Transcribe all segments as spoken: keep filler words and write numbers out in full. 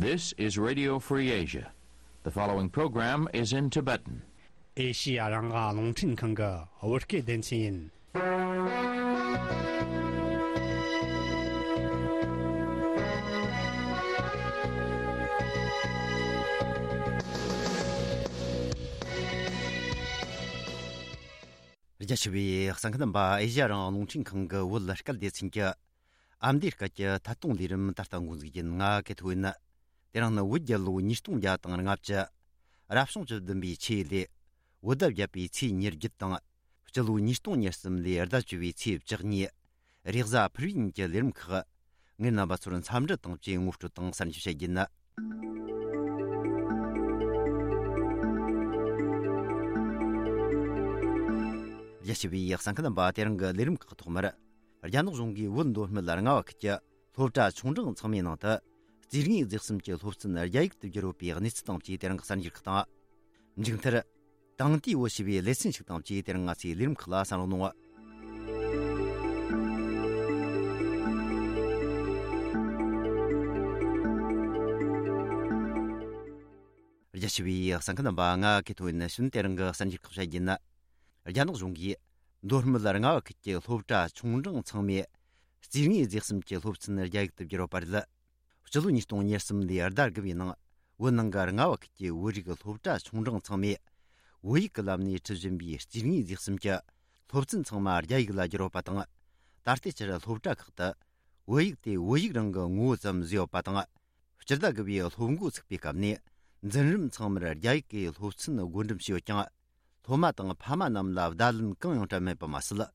This is Radio Free Asia. The following program is in Tibetan. ཨེ་ཤི་ཡ་རང་དབང་རླུང་འཕྲིན་ཁང་གི་བོད་སྐད་སྡེ་ཚན་ཡིན། རྒྱ་ཆེ་བའི་གསན་མཁན་རྣམ་པ། ཨེ་ཤི་ཡ་རང་དབང་རླུང་འཕྲིན་ཁང་གི་བོད་སྐད་སྡེ་ཚན་གྱི་ཨ་མདོའི་སྐད་ཀྱི་ཐད་གཏོང་ལས་རིམ་ད་ལྟ་འགོ་འཛུགས་ཡིན། ང་ཀེ་ཐོ་ཡིན། དེ་རིང་ནི་བོད་རྒྱལ་ལོ་ཉིས་སྟོང་བརྒྱ་དང་ལྔ་བཅུ། རབ་བྱུང་བཅུ་བདུན་པའི་ཆུ་ཡོས་ལོའི་བོད་ཟླ་བརྒྱད་པའི་ཚེས་ཉེར་བརྒྱད་དང་། སྤྱི་ལོ་ཉིས་སྟོང་ཉེར་གསུམ་ལོའི་ཟླ་བཅུ་པའི་ཚེས་བཅུ་གཉིས། རེས་གཟའ་ཕུར་བུའི་ཉིན་གྱི་ལས་རིམ་ཁག་ངས་རྣམ་པ་ཚོར་འཚམས་འདྲི་དང་བཅས་ངོ་སྤྲོད་དང་གསར་འགྱུར་བཤད་རྒྱུ་ཡིན། རྒྱ་ཆེ་བའི་གསན་མཁན་རྣམ་པ། དེ་རིང་གི་ལས་རིམ་ཁག་ཐོག་མར། རྒྱ་ནག་གཞུང་གིས་བོད་མདོ་སྨད་རྔ་བ་ཁུལ་གྱི་སློབ་གྲྭ་ཆུང་འབྲིང་ཚང་མའི་ནང་དུ། རྩིས་དངོས་རྫས་གསུམ་གྱི་སློབ་ཚན་རྒྱ་ཡིག་ཏུ་བསྒྱུར་ཡོད་པའི་གནས་ཚུལ་དང་བཅས་དེ་རིང་གི་གསར་འགྱུར་ཁག་དང་། མཇུག་མཐར། དེང་དུས་བོད་ཞེས་པའི་ལེ་ཚན་ཞིག་དང་བཅས་དེ་རིང་ང་ཚོའི་ལས་རིམ་ཁག་ལ་གསན་རོགས་གནང་། རྒྱ་ཆེ་བའི་གསན་མཁན་རྣམ་པ། ང་ཀེ་ཐོ་ཡིན། ནི་ཤུན་དེ་རིང་གི་གསར་འགྱུར་ཁག་བཤད་རྒྱུ་ཡིན། རྒྱ་ནག་གཞུང་གིས་མདོ་སྨད་རྔ་བ་ཁུལ་གྱི་སློབ་གྲྭ་ཆུང་འབྲིང་ཚང་མའི་རྩིས་དངོས་རྫས་གསུམ་གྱི་སློབ་ཚན་རྒྱ་ཡིག་ཏུ་བསྒྱུར་བ་རེད། སྤྱི་ལོ་ཉིས་སྟོང་ཉེར་གསུམ་ལོའི་ཟླ་དགུ་པའི་ནང་བོད་ནང་གི་རྔ་བ་ཁུལ་གྱི་བོད་རིགས་སློབ་གྲྭ་ཆུང་འབྲིང་ཚང་མས་བོད་ཡིག་གི་ལམ་ནས་ཁྲིད་བཞིན་པའི་རྩིས་དངོས་རྫས་གསུམ་གྱི་སློབ་ཚན་ཚང་མ་རྒྱ་ཡིག་ལ་བསྒྱུར་བ་དང་། ད་ལྟའི་ཆར་སློབ་གྲྭ་ཁག་ཏུ་བོད་ཡིག་དེ་བོད་ཡིག་རང་གི་ངོ་བོ་ཙམ་བཟོས་ཡོད་པ་དང་། སྤྱི་ཟླ་དགུ་པའི་སློབ་འགོ་ཚུགས་པའི་སྐབས་ནས་འཛིན་རིམ་ཚང་མར་རྒྱ་ཡིག་གི་སློབ་ཚན་བགོ་འགྲེམས་བྱས་ཡོད་ཀྱང་། སློབ་མ་དང་ཕ་མ་རྣམས་ལ་བརྡ་ལན་གང་ཡང་སྤྲད་མེད་པ་མ་ཟད།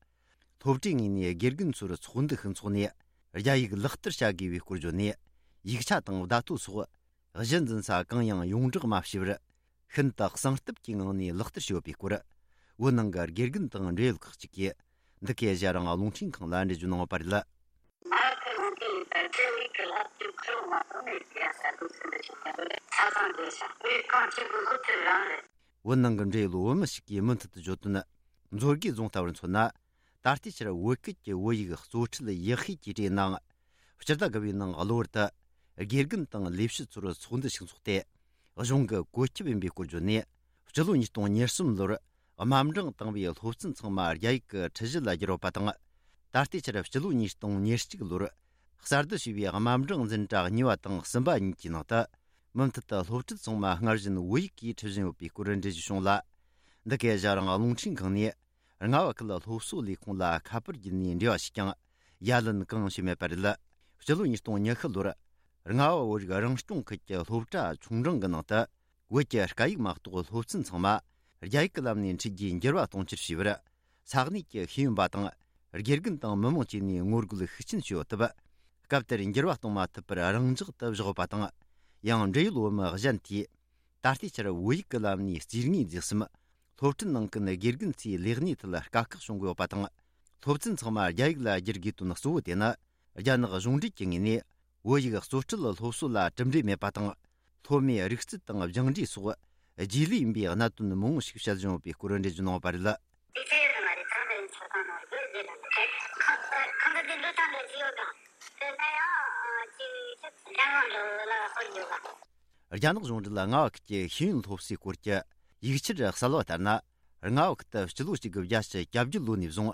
སློབ་གྲྭའི་ངོས་ནས་དགེ་རྒན་ཚོར་ཚོགས་འདུ་ཞིག་འཚོགས་ནས་རྒྱ་ཡིག་ལག་བསྟར་བྱ་དགོས་པའི་སྐོར་བརྗོད་ནས། ཡིག་ཆ་དང་བརྡ་ཐོ་སོགས་གཞི་འཛིན་ས་གང་ཡང་ཡོངས་བསྒྲགས་མ་བྱས་པར། ཤིན་ཏུ་གསང་སྟབས་ཀྱི་ངང་ནས་ལག་བསྟར་བྱས་ཡོད་པའི་སྐོར། བོད་ནང་གི་དགེ་རྒན་དང་འབྲེལ་ཡོད་ཁག་ཅིག་གིས་འདི་གའི་ཨེ་ཤ་ཡ་རང་དབང་རླུང་འཕྲིན་ཁང་ལ་འགྲེལ་བརྗོད་གནང་ཡོད་པ་རེད། ང་ཚོ་ནང་དེ་ཡིན་པ་ཁྲལ་ལུགས་ཀྱི་ལག་ཁྱེར་ཁུར་མ་སོང་ནས་ཡང་ས་ཁུལ་ཚུན་དུ་ཞིག་ཡོང་གི་རེད། ཆ་ཚང་དེ་ཤ་དེ་གང་བྱེད་དགོས་སློབ་ཁྲིད་རང་རེད། བོད་ནང་གི་འབྲེལ་ཡོད་བོད་མི་ཞིག་གིས་མུ་མཐུད་དུ་བརྗོད་དོན། མཛོད་དགེ་རྫོང་ལྟ་བུར་མཚོན་ན། ད་ལྟའི་ཆར་བོད་སྐད་ཀྱི་བོད་ཡིག་གཙོ་ཁྲིད་ཡག་ཤོས་ཀྱི་གྲས་ནང་། སྤྱི་ཟླ་དགུ་པའི་ནང་གློ་བུར་དུ་དགེ་རྒན་དང་ལས་བྱེད་ཚོར་ཚོགས་འདུ་ཞིག་འཚོགས་ཏེ། གཞུང་གི་བཀོད་ཁྱབ་ཡིན་པའི་སྐོར་བརྗོད་ནས། སྤྱི་ལོ་ཉིས་སྟོང་ཉེར་གསུམ་ལོར་དམའ་འབྲིང་དང་པོའི་སློབ་ཚན་ཚང་མ་རྒྱ་ཡིག་གི་ཁྲིད་གཞི་ལ་བསྒྱུར་བ་དང་། ད་ལྟའི་ཆར་སྤྱི་ལོ་ཉིས་སྟོང་ཉེར་གཅིག་ལོར་གསར་དུ་བྱས་པའི་དམའ་འབྲིང་འཛིན་གྲྭ་གཉིས་པ་དང་གསུམ་པ་གཉིས་ཀྱི་ནང་དུ། མུ་མཐུད་དུ་སློབ་ཁྲིད་ཚང་མ་སྔར་བཞིན་བོད་ཡིག་གིས་ཁྲིད་བཞིན་ཡོད་པའི་སྐོར་འགྲེལ་བརྗོད་བྱུང་ལ། འདི་གའི་ཨེ་ཤ་ཡ་རང་དབང་རླུང་འཕྲིན་ཁང་ནས། རྔ་བ་ཁུལ་སློབ་གསོ་ལས་ཁུངས་ལ་ཁ་པར་བརྒྱུད་ནས་འབྲེལ་བ་ཞུས་ཀྱང་། ཡ་ལན་གང་ཡང་བྱས་མེད་པ་རེད། སྤྱི་ལོ་ཉིས་སྟོང་ཉི་ཤུ་ལོར། རྔ་བ་བོད་རིགས་རང་སྐྱོང་ཁུལ་གྱི་སློབ་གྲྭ་ཆུང་འབྲིང་གི་ནང་དུ། བོད་ཀྱི་སྐད་ཡིག་མ་གཏོགས་སློབ་ཚན་ཚང་མ་རྒྱ་ཡིག་གི་ལམ་ནས་འཁྲིད་རྒྱུའི་འགྱུར་བ་གཏོང་ཕྱིར་ཞུས་པར། ས་གནས་ཀྱི་ཤེས་ཡོན་པ་དང་། དགེ་རྒན་དང་མི་མང་བཅས་ནས་ངོ་རྒོལ་ཤུགས་ཆེན་བྱས་ཡོད་སྟབས། སྐབས་དེར་འགྱུར་བ་གཏོང་མ་ཐུབ་པར་རང་འཇགས་སུ་བཞག་ཡོད་པ་དང་། ཡང་འབྲེལ་ཡོད་བོད་མི་གཞན་དེས། ད་ལྟའི་ཆར་བོད་ཡིག་གི་ལམ་ནས་རྩིས་དངོས་རྫས་གསུམ། སློབ་ཁྲིད་གནང་མཁན་དགེ་རྒན་ཚོའི་ལས་གནས་ཐད་དཀའ་ཁག་བྱུང་གི་ཡོད་པ་དང་། སློབ་ཚན་ཚང་མ་རྒྱ་ཡིག་ལ་བསྒྱུར་དགོས་དོན་གཙོ་བོ་དེ་ནི། རྒྱ་ནག་གཞུང་འབྲེལ་གྱི་ངོས་ནས་བོད་ཡིག་གཙོ་ཁྲིད་སློབ་གསོ་ལ་གྲུབ་འབྲས་མེད་པ་དང་། སློབ་མའི་རིག་རྩལ་དང་སྦྱངས་འབྲས་སོགས་རྗེས་ལུས་ཡིན་པའི་གནད་དོན་མང་བོ་ཞིག་བཤད་བཞིན་ཡོད་པའི་སྐོར་འགྲེལ་བརྗོད་གནང་ཡོད་པ་རེད། དེ་ཚོ་ཡོད་མ་རེད། ཚང་མ་ཡིན་ཆོག་གང་ནོར་དགོས་རེད་ལ། ཁ་ཁ་ཁ་འདི་འདི་ཐང་འདི་ཚོ་ཡོད་དང་། དེ་ནས་ཡང་ཅིག་ཅིག་རྒྱ་ནག་འགྲོ་ལ་ཧོལ་ཡོད་ལ། རྒྱ་ནག་གཞུང་འབྲེལ་རྔ་བ་ཁུལ་གྱི་ཤེས་ཡོན་སློབ་གསོའི་སྐོར་གྱི་ཡིག་ཆར་གསལ་བ་ལྟར་ན། རྔ་བ་ཁུལ་དུ་སྤྱི་ལོ་གཅིག་དགུ་བརྒྱད་ཅུ་གྱ་བརྒྱད་ལོ་ནས་བཟུང་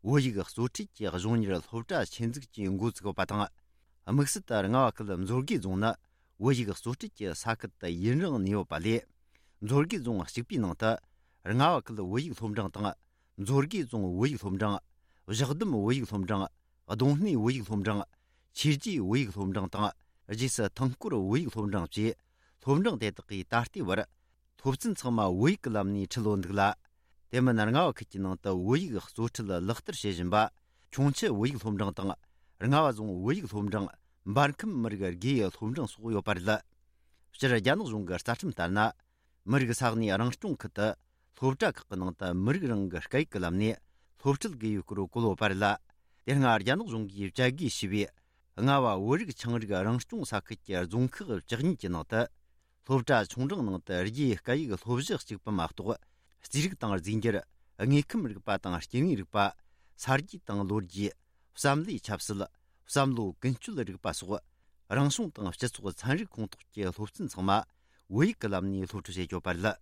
བོད་ཡིག་གཙོ་ཁྲིད་ཀྱི་གཞུང་གཉེར་སློབ་གྲྭ་ཆེད་འཛུགས་ཀྱིས་འགོ་བཙུགས་ཡོད་པ་དང་། དམིགས་བསལ་དུ་རྔ་བ་ཁུལ་མཛོད་དགེ་རྫོང་ནི་བོད་ཡིག་གཙོ་ཁྲིད་ཀྱི་ས་ཁུལ་དུ་ཡུན་རིང་གནས་ཡོད་པ་ལས། མཛོད་དགེ་རྫོང་གཅིག་པུའི་ནང་དུ་རྔ་བ་ཁུལ་བོད་ཡིག་སློབ་འབྲིང་དང་། མཛོད་དགེ་རྫོང་བོད་ཡིག་སློབ་འབྲིང་། བཞག་སྡོམ་བོད་ཡིག་སློབ་འབྲིང་། རྡུང་སྣེ་བོད་ཡིག་སློབ་འབྲིང་། ཆོས་རྗེ་བོད་ཡིག་སློབ་འབྲིང་དང་། རྗེས་སུ་ཐང་སྐོར་བོད་ཡིག་སློབ་འབྲིང་བཅས་སློབ་འབྲིང་དེ་དག་གིས་ད་ལྟའི་བར་སློབ་ཚན་ཚང་མ་བོད་ཡིག་གི་ལམ་ནས་ཁྲིད་ཡོད་འདུག་ལ། དེ་མིན་རྔ་བ་ཁུལ་གྱི་ནང་དུ་བོད་ཡིག་གཙོ་ཁྲིད་ལག་བསྟར་བྱེད་བཞིན་པ་ཁྱུང་མཆུ་བོད་ཡིག་སློབ་འབྲིང་དང་། རྔ་བ་རྫོང་བོད་ཡིག་སློབ་འབྲིང་། འབར་ཁམས་མི་རིགས་དགེ་ཡི་སློབ་འབྲིང་སོགས་ཡོད་པ་རེད། སྤྱིར་རྒྱ་ནག་གཞུང་གི་རྩ་ཁྲིམས་ལྟར་ན། མི་རིགས་ས་གནས་རང་སྐྱོང་ཁུལ་དུ་སློབ་གྲྭ་ཁག་གི་ནང་དུ་མི་རིགས་རང་གི་སྐད་ཡིག་གི་ལམ་ནས་སློབ་ཁྲིད་དགོས་ཡོད་སྐོར་བཀོད་ཡོད་པ་རེད་ལ། དེ་སྔ་རྒྱ་ནག་གཞུང་གིས་བཅད་བགོས་བྱས་པའི་རྔ་བ་བོད་རིགས་ཆའང་རིགས་རང་སྐྱོང་ས་ཁུལ་གྱི་རྫོང་ཁག་བཅུ་གཉིས་ཀྱི་ནང་དུ། སློབ་གྲྭ་ཆུང་འབྲིང་ནང་དུ་རྒྱའི་སྐད་ཡིག་སློབ་གཞི་གཅིག་པུ་མ་གཏོགས། རྩིས་རིག་དང་རྫས་འགྱུར། དངོས་ཁམས་རིག་པ་དང་སྐྱེ་དངོས་རིག་པ། ས་རྒྱུས་དང་ལོ་རྒྱུས། བསམ་བློའི་ཆབ་སྲིད། བསམ་བློ་ཀུན་སྤྱོད་རིག་པ་སོགས། རང་གཞུང་དང་སྤྱི་ཚོགས་ཚན་རིག་ཁོངས་གཏོགས་ཀྱི་སློབ་ཚན་ཚང་མ་བོད་ཡིག་གི་ལམ་ནས་སློབ་ཁྲིད་བྱེད་ཆོག་པ་རེད།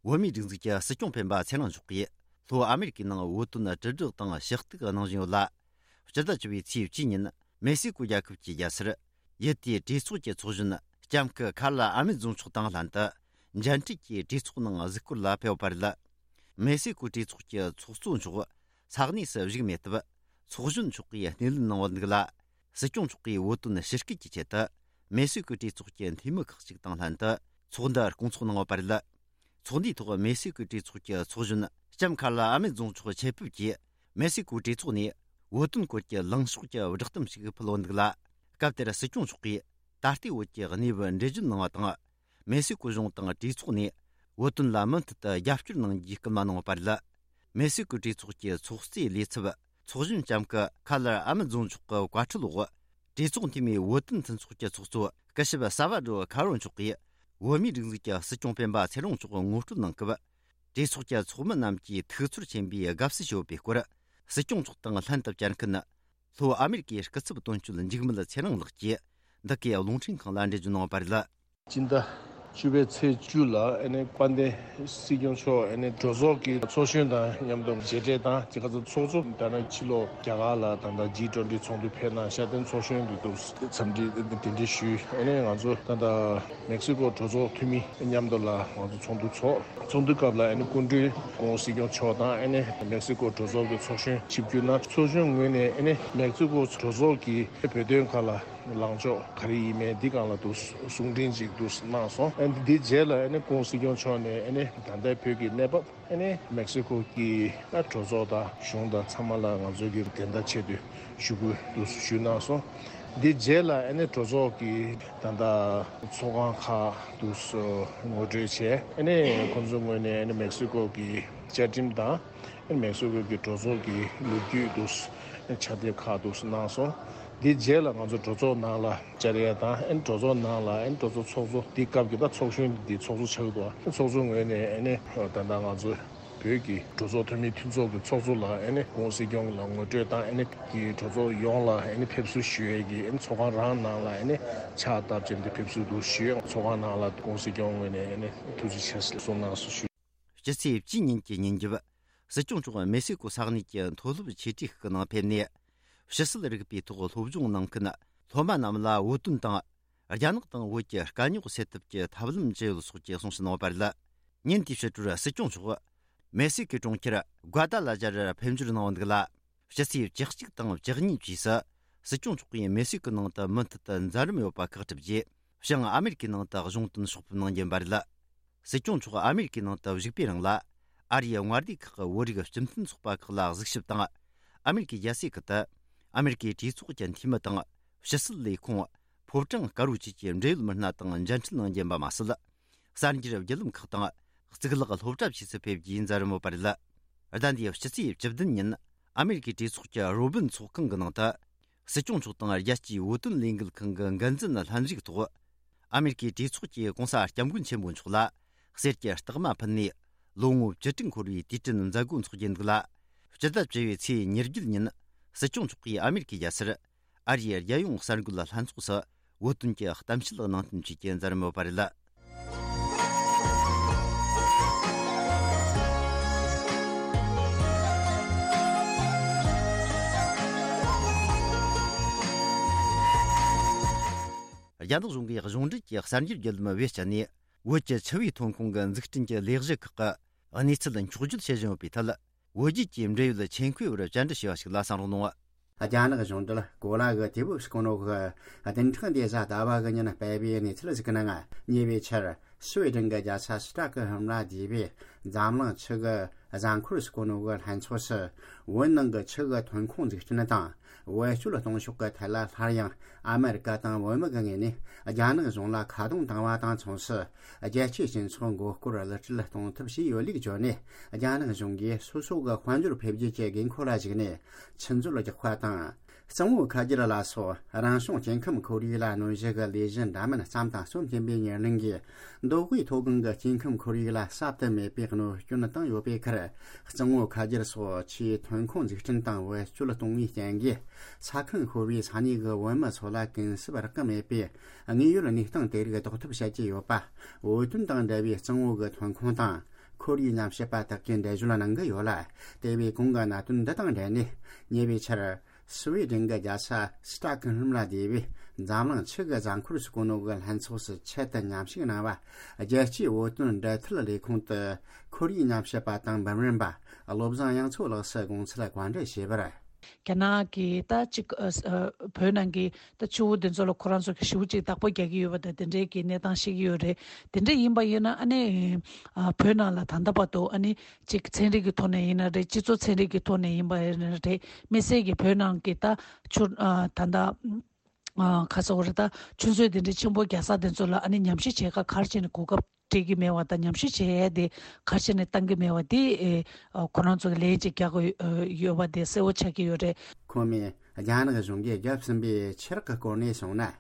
བོད་མིའི་སྒྲིག་འཛུགས་ཀྱི་སྲིད་སྐྱོང་སྤེན་པ་ཚེ་རིང་མཆོག་གིས་ལྷོ་ཨ་མེ་རི་ཀའི་ནང་བོད་དོན་དྲིལ་བསྒྲགས་དང་ཞུ་གཏུག་གནང་བཞིན་ཡོད་ལ། སྤྱི་ཟླ་བཅུ་པའི་ཚེས་བཅུ་ཉིན་མེག་སི་ཀོ་རྒྱལ་ཁབ་ཀྱི་རྒྱལ་སར་ཡུལ་དེའི་གྲོས་ཚོགས་ཀྱི་ཚོགས་གཞོན་ལྕམ་སྐུ་ཁ་ལ་ཨ་མེ་རྫོང་མཆོག་དང་ལྷན་དུ་མཇལ་འཕྲད་ཀྱིས་གྲོས་ཚོགས་ནང་གཟིགས་སྐོར་ལ་ཕེབས་པ་རེད། མེག་སི་ཀོ་གྲོས་ཚོགས་ཀྱི་ཚོགས་གཙོ་མཆོག་ས་གནས་སུ་བཞུགས་མེད་སྟབས། ཚོགས་གཞོན་མཆོག་གིས་སྣེ་ལེན་གནང་བ་འདུག་ལ། སྲིད་སྐྱོང་མཆོག་གིས་བོད་དོན་ཞི་བརྒྱད་ཀྱི་ཆེད་དུ་མེག་སི་ཀོའི་གྲོས་ཚོགས་ཀྱི་འཐུས་མི་ཁག་ཅིག་དང་ལྷན་དུ་ཚོགས་འདུ་སྐོང་ཚོགས་གནང་བ་རེད། ཚོགས་འདུའི་ཐོག་མེག་སི་ཀོའི་གྲོས་ཚོགས་ཀྱི་ཚོགས་གཞོན་ལྕམ་ཁ་ལ་ཨ་མེ་རྫོང་མཆོག་ཆེད་ཕེབས་ཀྱིས་མེག་སི་ཀོའི་གྲོས་ཚོགས་ནས་བོད་དོན་སྐོར་གྱི་ལངས་ཕྱོགས་ཀྱི་བསྒྲགས་གཏམ་ཞིག་ཕུལ་བ་འདུག་ལ། སྐབས་དེར་སྲིད་སྐྱོང་མཆོག་གིས་ད་ལྟའི་བོད་ཀྱི་གནས་བབ་འགྲེལ་བརྗོད་གནང་བ་དང་། མེག་སི་ཀོ་གཞུང་དང་གྲོས་ཚོགས་ནས་བོད་དོན་ལ་མུ་མཐུད་དུ་རྒྱབ་སྐྱོར་གནང་རྒྱུའི་སྐུལ་མ་གནང་བ་རེད། མེག་སི་ཀོའི་གྲོས་ཚོགས་ཀྱི་ཚོགས་གཙོའི་ལས་ཚབ་ཚོགས་གཞོན་ལྕམ་སྐུ་ཁ་ལར་ཨ་མེ་རྫོང་མཆོག་གི་བཀའ་ཁྲོལ་འོག་གྲོས་ཚོགས་འཐུས་མིའི་བོད་དོན་མཐུན་ཚོགས་ཀྱི་ཚོགས་གཙོ་སྐུ་ཞབས་ས་བ་ཌོ་ཁ་རོ་མཆོག་གིས་བོད་མིའི་སྒྲིག་འཛུགས་ཀྱི་སྲིད་སྐྱོང་སྤེན་པ་ཚེ་རིང་མཆོག་ངོ་སྤྲོད་གནང་སྐབས། གྲོས་ཚོགས་ཀྱི་ཚོགས་མི་རྣམས་ཀྱིས་ཐུགས་ཚོར་ཆེན་པོས་དགའ་བསུ་ཞུ་བའི་སྐོར། སྲིད་སྐྱོང་མཆོག་དང་ལྷན་དུ་བཅར་མཁན་ལྷོ་ཨ་མེ་རི་ཀའི་སྐུ་ཚབ་དོན་གཅོད་འཇིགས་མེད་ཚེ་རིང་ལགས་ཀྱིས་འདི་གའི་རླུང་འཕྲིན་ཁང་ལ་འགྲེལ་བརྗོད་གནང་བ་རེད། སྤྱི་ཟླ་བཅུ་པའི་ཚེས་བཅུ་ལ་ཨ་ནི་དཔལ་ལྡན་སྲིད་སྐྱོང་མཆོག་ཨ་ནི་གྲོས་ཚོགས་ཀྱི་ཚོགས་གཞོན་དང་མཉམ་དུ་མཇལ་འཕྲད་དང་དེ་ག་ཚོད་ཚོགས་གཙོ་ད་ནི་ཕྱི་ལོགས་རྒྱ་གར་ལ་ད་ལྟ་ཇི་ཊུ་ཝེན་ཊི་ཚོགས་འདུ་ཕེབས་གནང་ཤར་བསྟན་ཚོགས་གཞོན་དུ་འདུག་འཚམས་འདྲི་གདན་འདྲེན་ཞུས། ཨ་ནི་ང་ཚོ་ད་ལྟ་མེག་སི་ཀོ་གྲོས་ཚོགས་འཐུས་མི་མཉམ་དུ་ལ་ང་ཚོ་ཚོགས་འདུ་ཚོགས། ཚོགས་འདུ་སྐབས་ལ་ཨ་ནི་སྐུ་མགྲོན་སྐུ་ངོ་སྲིད་སྐྱོང་མཆོག་དང་ཨ་ནི་མེག་སི་ཀོ་གྲོས་ཚོགས་ཀྱི་ཚོགས་གཞོན་ཆིབས་བསྒྱུར་གནང་། ཚོགས་གཞོན་ངོས་ནས་ཨ་ནི་མེག་སི་ཀོ་གྲོས་ཚོགས་ཀྱི་བོད་དོན་ཁག་ལ་ལངས་ཕྱོགས་ག་རེ་ཡིན་མིན་འདི་སྒང་ལ་དུ་གསུང་འཕྲིན་ཅིག་དུ་གནང་སོང་། ཨ་ནི་འདི་རྗེས་ལ་ཨ་ནི་སྐུ་ངོ་སྲིད་སྐྱོང་མཆོག་ནས་ཨ་ནི་ད་ལྟའི་བོད་ཀྱི་གནས་བབ། ཨ་ནི་མེག་སི་ཀོ་གི་ཨ་གྲོས་ཚོགས་དང་གཞུང་དང་ཚང་མ་ལ་ང་ཚོ་གི་དེ་འདྲ་ཆེད་དུ་ཞུ་སྐུལ་དུ་ཞུས་གནང་སོང་། འདི་རྗེས་ལ་ཨ་ནི་གྲོས་ཚོགས་ཀྱི་ད་ལྟ་ཚོགས་ཁང་ཁག་དུ་ངོ་སྤྲོད་བྱས། ཨ་ནི་ཁོང་ཚོའི་ངོས་ནས་ཨ་ནི་མེག་སི་ཀོ་གི་བཅའ་ཁྲིམས་དང་ཨ་ནི་མེག་སི་ཀོ་གི་གྲོས་ཚོགས་ཀྱི་ལོ་རྒྱུས་དུ་ཕྱག་དེབ་ཁག་དུ་གནང་སོང་། འདི་རྗེས་ལ་ང་ཚོ་གྲོས་ཚོགས་ནང་ལ་བཅར་ཡས་དང་ཨ་ནི་གྲོས་ཚོགས་ནང་ལ་ཨ་ནི་གྲོས་ཚོགས་ཚོགས་གཙོ་འདི་སྐབས་ཀྱི་ད་ཚོགས་གཞོན་འདི་ཚོགས་གཙོ་ཆགས་འདུག་ཨ་ནི་ཚོགས་གཙོ་ངོས་ནས་ཨ་ནི་ད་ལྟ་ང་ཚོ་བོད་ཀྱི་གྲོས་ཚོགས་འཐུས་མི་མཐུན་ཚོགས་ཀྱི་ཚོགས་གཙོ་ལ་ཨ་ནི་སྐུ་ངོ་སྲིད་སྐྱོང་ལ་ངོ་སྤྲོད་དང་ཨ་ནི་གི་གྲོས་ཚོགས་ཡོངས་ལ་ཨ་ནི་ཕེབས་བསུ་ཞུ་ཡས་ཀྱི་ཨ་ནི་ཚོགས་ཁང་རང་ནང་ལ་ཨ་ནི་ཕྱག་བཏབ་ཅིང་དེ་ཕེབས་བསུ་དུ་ཞུས། ཚོགས་ཁང་ནང་ལ་སྐུ་ངོ་སྲིད་སྐྱོང་ངོས་ནས་ཨ་ནི་ཐུགས་རྗེ་ཆེ་གསུང་གནང་སོ་ཞུ། སྤྱི་ཚེས་བཅུ་ཉིན་གྱི་ཉིན་རྒྱབ། སྲིད་སྐྱོང་མཆོག་མེག་སི་ཀོ་ས་གནས་ཀྱི་མཐོ་སློབ་ཆེ་གྲས་ཤིག་གི་ནང་ཕེབས་ནས། ཕྱི་སྲིད་རིག་པའི་ཐོག་སློབ་སྦྱོང་གནང་མཁན་སློབ་མ་རྣམས་ལ་བོད་དོན་དང་། རྒྱ་ནག་དང་བོད་ཀྱི་དཀའ་རྙོག་སེལ་ཐབས་ཀྱི་ཐབས་ལམ་ཇི་ཡོད་སོགས་ཀྱི་གསུང་བཤད་གནང་བ་རེད། ཉིན་དེའི་ཕྱི་དྲོར་སྲིད་སྐྱོང་མཆོག་མེག་སི་ཀོའི་གྲོང་ཁྱེར་སྒུ་ཌ་ལ་ཇར་ཕེབས་འབྱོར་གནང་བ་འདུག་ལ། ཕྱི་ཚེས་བཅུ་གཅིག་དང་བཅུ་གཉིས་བཅས་སུ་སྲིད་སྐྱོང་མཆོག་གིས་མེག་སི་ཀོའི་ནང་དུ་མུ་མཐུད་དུ་མཛད་རིམ་ཡོད་པ་ཁག་གྲུབ་རྗེས། བྱང་ཨ་མེ་རི་ཀའི་ནང་དུ་གཞུང་དོན་ཕྱོགས་ཕེབས་གནང་རྒྱུ་ཡིན་པ་རེད། སྲིད་སྐྱོང་མཆོག་ཨ་མེ་རི་ཀའི་ནང་དུ་བཞུགས་པའི་རིང་ལ། ཨ་རིའི་དངོས་བདེ་ཁག་གི་བོད་རིགས་སྤྱི་མཐུན་ཚོགས་པ་ཁག་ལ་གཟིགས་ཞིབ་དང་། ཨ་མེ་རི་ཀའི་རྒྱལ་སའི་ཁུལ་དུ། ཨ་མེ་རི་ཀའི་གྲོས་ཚོགས་ཀྱི་འཐུས་མི་དང་། ཕྱི་སྲིད་ལས་ཁུངས། ཕོ་བྲང་དཀར་པོ་བཅས་ཀྱི་འབྲེལ་ཡོད་མི་སྣ་དང་མཇལ་འཕྲད་གནང་རྒྱུ་ཡིན་པ་མ་ཟད། གསར་འགྱུར་བརྒྱུད་ལམ་ཁག་དང་། གཙུག་ལག་སློབ་གྲྭ་བཅས་སུ་ཕེབས་རྒྱུའི་མཛད་རིམ་ཡོད་པ་རེད། ཟླ་འདིའི་ཕྱི་ཚེས་བཅུ་བདུན་ཉིན། ཨ་མེ་རི་ཀའི་གྲོས་ཚོགས་ཀྱི་རོ་སྦིན་ཚོགས་ཁང་གི་ནང་དུ། སྲིད་སྐྱོང་མཆོག་དང་རྒྱལ་སྤྱིའི་བོད་དོན་ལས་འགུལ་ཁང་གི་འགན་འཛིན་ལྷན་རིགས་ཐོག་ཨ་མེ་རི་ཀའི་གྲོས་ཚོགས་ཀྱི་གོང་ས་སྐྱབས་མགོན་ཆེན་པོ་མཆོག་ལ་གསེར་གྱི་རྟགས་མ་ཕུལ་ནས། ལོ་ངོ་བཅུ་དྲུག་འཁོར་བའི་དུས་དྲན་མཛད་སྒོ་འཚོགས་རྒྱུ་འདུག་ལ། སྤྱི་ཟླ་བཅུ་པའི་ཚེས་ཉེར་བརྒྱད་ཉིན། སྲིད་སྐྱོང་མཆོག་གིས་ཨ་མེ་རི་ཀའི་རྒྱལ་སར། ཨ་རིའི་རྒྱལ་ཡོངས་གསར་འགོད་ལྷན་ཚོགས་སུ། བོད་དོན་གྱི་གཏམ་བཤད་གནང་སྟོན་བཅས་ཀྱི་མཛད་རིམ་ཡོད་པ་རེད། རྒྱ་ནག་གཞུང་གིས་གཞུང་འབྲེལ་གྱི་གསར་འགྱུར་བརྒྱུད་ལམ་བེད་སྤྱད་ནས། བོད་ཀྱི་ཆུ་བའི་ཐོན་ཁུངས་ཀྱི་འཛུགས་སྐྲུན་གྱི་ལས་གཞི་ཁག་གི་གནས་ཚུལ་འཁྱོག་བརྗོད་བྱེད་བཞིན་ཡོད་པའི་ཐད། བོད་བརྒྱུད་ཀྱི་འབྲེལ་ཡོད་ཆེད་མཁས་པར་བཅར་འདྲི་ཞུས་པ་ཞིག་ལ་གསན་རོགས་གནང་། རྒྱ་ནག་གཞུང་འབྲེལ་གོ་ལ་གི་དུས་བབ་སྐོར་ནོ་གི་བདུན་ཕྲག་འདི་གཟའ་ཟླ་བ་གི་ཉིན་སྤེལ་བའི་གནས་ཚུལ་ཞིག་གི་ནང་ཉེ་བའི་ཆར་སུའེ་ཏེན་གྱི་རྒྱལ་ས་སི་ཏྲ་ཀི་ཧི་མ་ལ་སྡེ་བའི་འཛམ་གླིང་ཆུ་གི་གཟའ་འཁོར་སྐོར་ནོ་གི་ལྷན་ཚོགས་སུ་བོད་ནང་གི་ཆུ་གི་ཐོན་ཁུངས་འཛུགས་སྐྲུན་དང་བེད་སྤྱོད་གཏོང་ཕྱོགས་ཀྱི་ཐད་ལ་སླར་ཡང་ཨ་མེ་རི་ཀ་དང་བོད་མི་གི་ངོས་ནས་རྒྱ་ནག་གཞུང་ལ་ཁ་རྡུང་བཏང་བ་དང་མཚུངས་སུ། རྒྱལ་སྤྱིའི་སྤྱི་ཚོགས་མགོ་སྐོར་གླུ་སྲོལ་གཏོང་ཐབས་བྱས་ཡོད་ལུགས་བརྗོད་ནས། རྒྱ་ནག་གཞུང་གིས་སོ་སོ་གི་དཔལ་འབྱོར་འཕེལ་རྒྱས་ཀྱི་དགོས་མཁོ་ལ་གཞིགས་ནས་ཆུ་མཛོད་རྒྱག་པ་དང་ གཙང་བོ་ཁ་རྒྱུད་ལ་སོགས་རང་བྱུང་སྐྱེ་ཁམས་ཁོར་ཡུག་ལ་གནོད་གཞི་གི་ལས་གཞི་འདྲ་མིན་བརྩམས་དང་རྩོམ་བཞིན་པའི་ཉེར་ལེན་གྱིས། མདོ་དབུས་མཐོ་སྒང་གི་སྐྱེ་ཁམས་ཁོར་ཡུག་ལ་ཟབ་ཏུ་མེད་པའི་གནོད་སྐྱོན་བཏང་ཡོད་པའི་ཁར། གཙང་བོ་ཁ་རྒྱུད་སོགས་ཆུའི་ཐོན་ཁུངས་འཛུགས་སྐྲུན་དང་བེད་སྤྱོད་གཏོང་བའི་རྐྱེན་གྱིས། ས་ཁང་ཤོར་བའི་ས་གནས་ཀྱི་བོད་མི་ཚོ་ལ་གུན་གསབ་རག་གི་མེད་པའི་དངོས་ཡོད་གནས་སྟངས་དེ་རིགས་ཟློག་ཐབས་བྱེད་ཀྱི་ཡོད་པ། བོད་དོན་དང་འབྲེལ་བའི་གཙང་བོ་གི་ཐོན་ཁུངས་དང་ཁོར་ཡུག་ཉམས་ཞིབ་པ་དག་གིས་འགྲེལ་བརྗོད་གནང་གི་ཡོད་ལ། དེ་བས་གོང་གི་གནད་དོན་འདི་དང་འབྲེལ་ནས། ཉེ་བའི་ཆར། སུ་ཝེ་ཌེན་གྱི་རྒྱལ་ས་སི་ཏྲག་ཧོལམ་ལ་སྡོད་པའི་འཛམ་གླིང་ཆུ་གི་རྫ་འཁོར་ཟེར་གོ་ནོ་གི་ལྷན་ཚོགས་སུ་ཆེད་དུ་མཉམ་ཞུགས་གནང་བ། རྒྱལ་སྤྱིའི་བོད་དོན་འབྲེལ་མཐུད་ལས་ཁུངས་དུ་ཁོར་ཡུག་ཉམས་ཞིབ་པ་དང་འབུམ་རམས་པ་བློ་བཟང་དབྱངས་མཚོ་ལགས་སུ་དགོངས་ཚུལ་བཀའ་འདྲི་ཞུས་པར། རྒྱ་ནག་གིས་ད་ཅིག་ཨ་ཨ་བོད་ནང་གི་ད་ཆུ་བོ་འདི་ཚོ་ལ་ཁོ་རང་ཚོ་གི་ཞེ་པོ་ཅིག་བདག་པོ་རྒྱག་གི་ཡོད་པ་དང་། དེ་འདྲའི་གི་གནས་སྟངས་ཤིག་ཡོད་རེད། དེ་འདྲ་ཡིན་པ་ཡིན་ན། ཨ་ནི་ཨ་བོད་ནང་ལ་ད་ལྟ་བར་དུ། ཨ་ནི་ཅིག་ཚན་རིག་གི་ཐོག་ནས་ཡིན་ན་རེད། སྤྱི་ཚོགས་ཚན་རིག་གི་ཐོག་ནས་ཡིན་པ་ཡིན་ན་རེད། དམིགས་བསལ་གྱི་བོད་ནང་གི་ད་ཆུ་ཨ་ད་ལྟ་ཨ་ཁ་སོག་རེད། ད་ཆུ་མཛོད་དེ་འདྲའི་ཆེན་པོ་རྒྱག་ས་དེ་ཚོ་ལ། ཨ་ནི་ཉམས་ཞིབ་བྱེད་ཁ་ག་རེ་བྱས་ནས་གོ་སྐབས་སྤྲད་ཀྱི་མེད་པ་དང་། ཉམས་ཞིབ་བྱེད་ཡས་དེ་ག་རེ་བྱས་ནས་བཏང་གི་མེད་པ་དེ། ཨེ་ཨ་ཁོ་རང་ཚོ་གི་ལན་ཅིག་རྒྱག་གི་ཡོད་པ་དེ་གསལ་པོ་ཆགས་ཀྱི་ཡོད་རེད། ཁོ་མོས་རྒྱ་ནག་གཞུང་གིས་བརྒྱབ་ཟིན་པའི་ཆུ་རགས་ཀྱི་སྐོར་ནས་གསུངས་ན།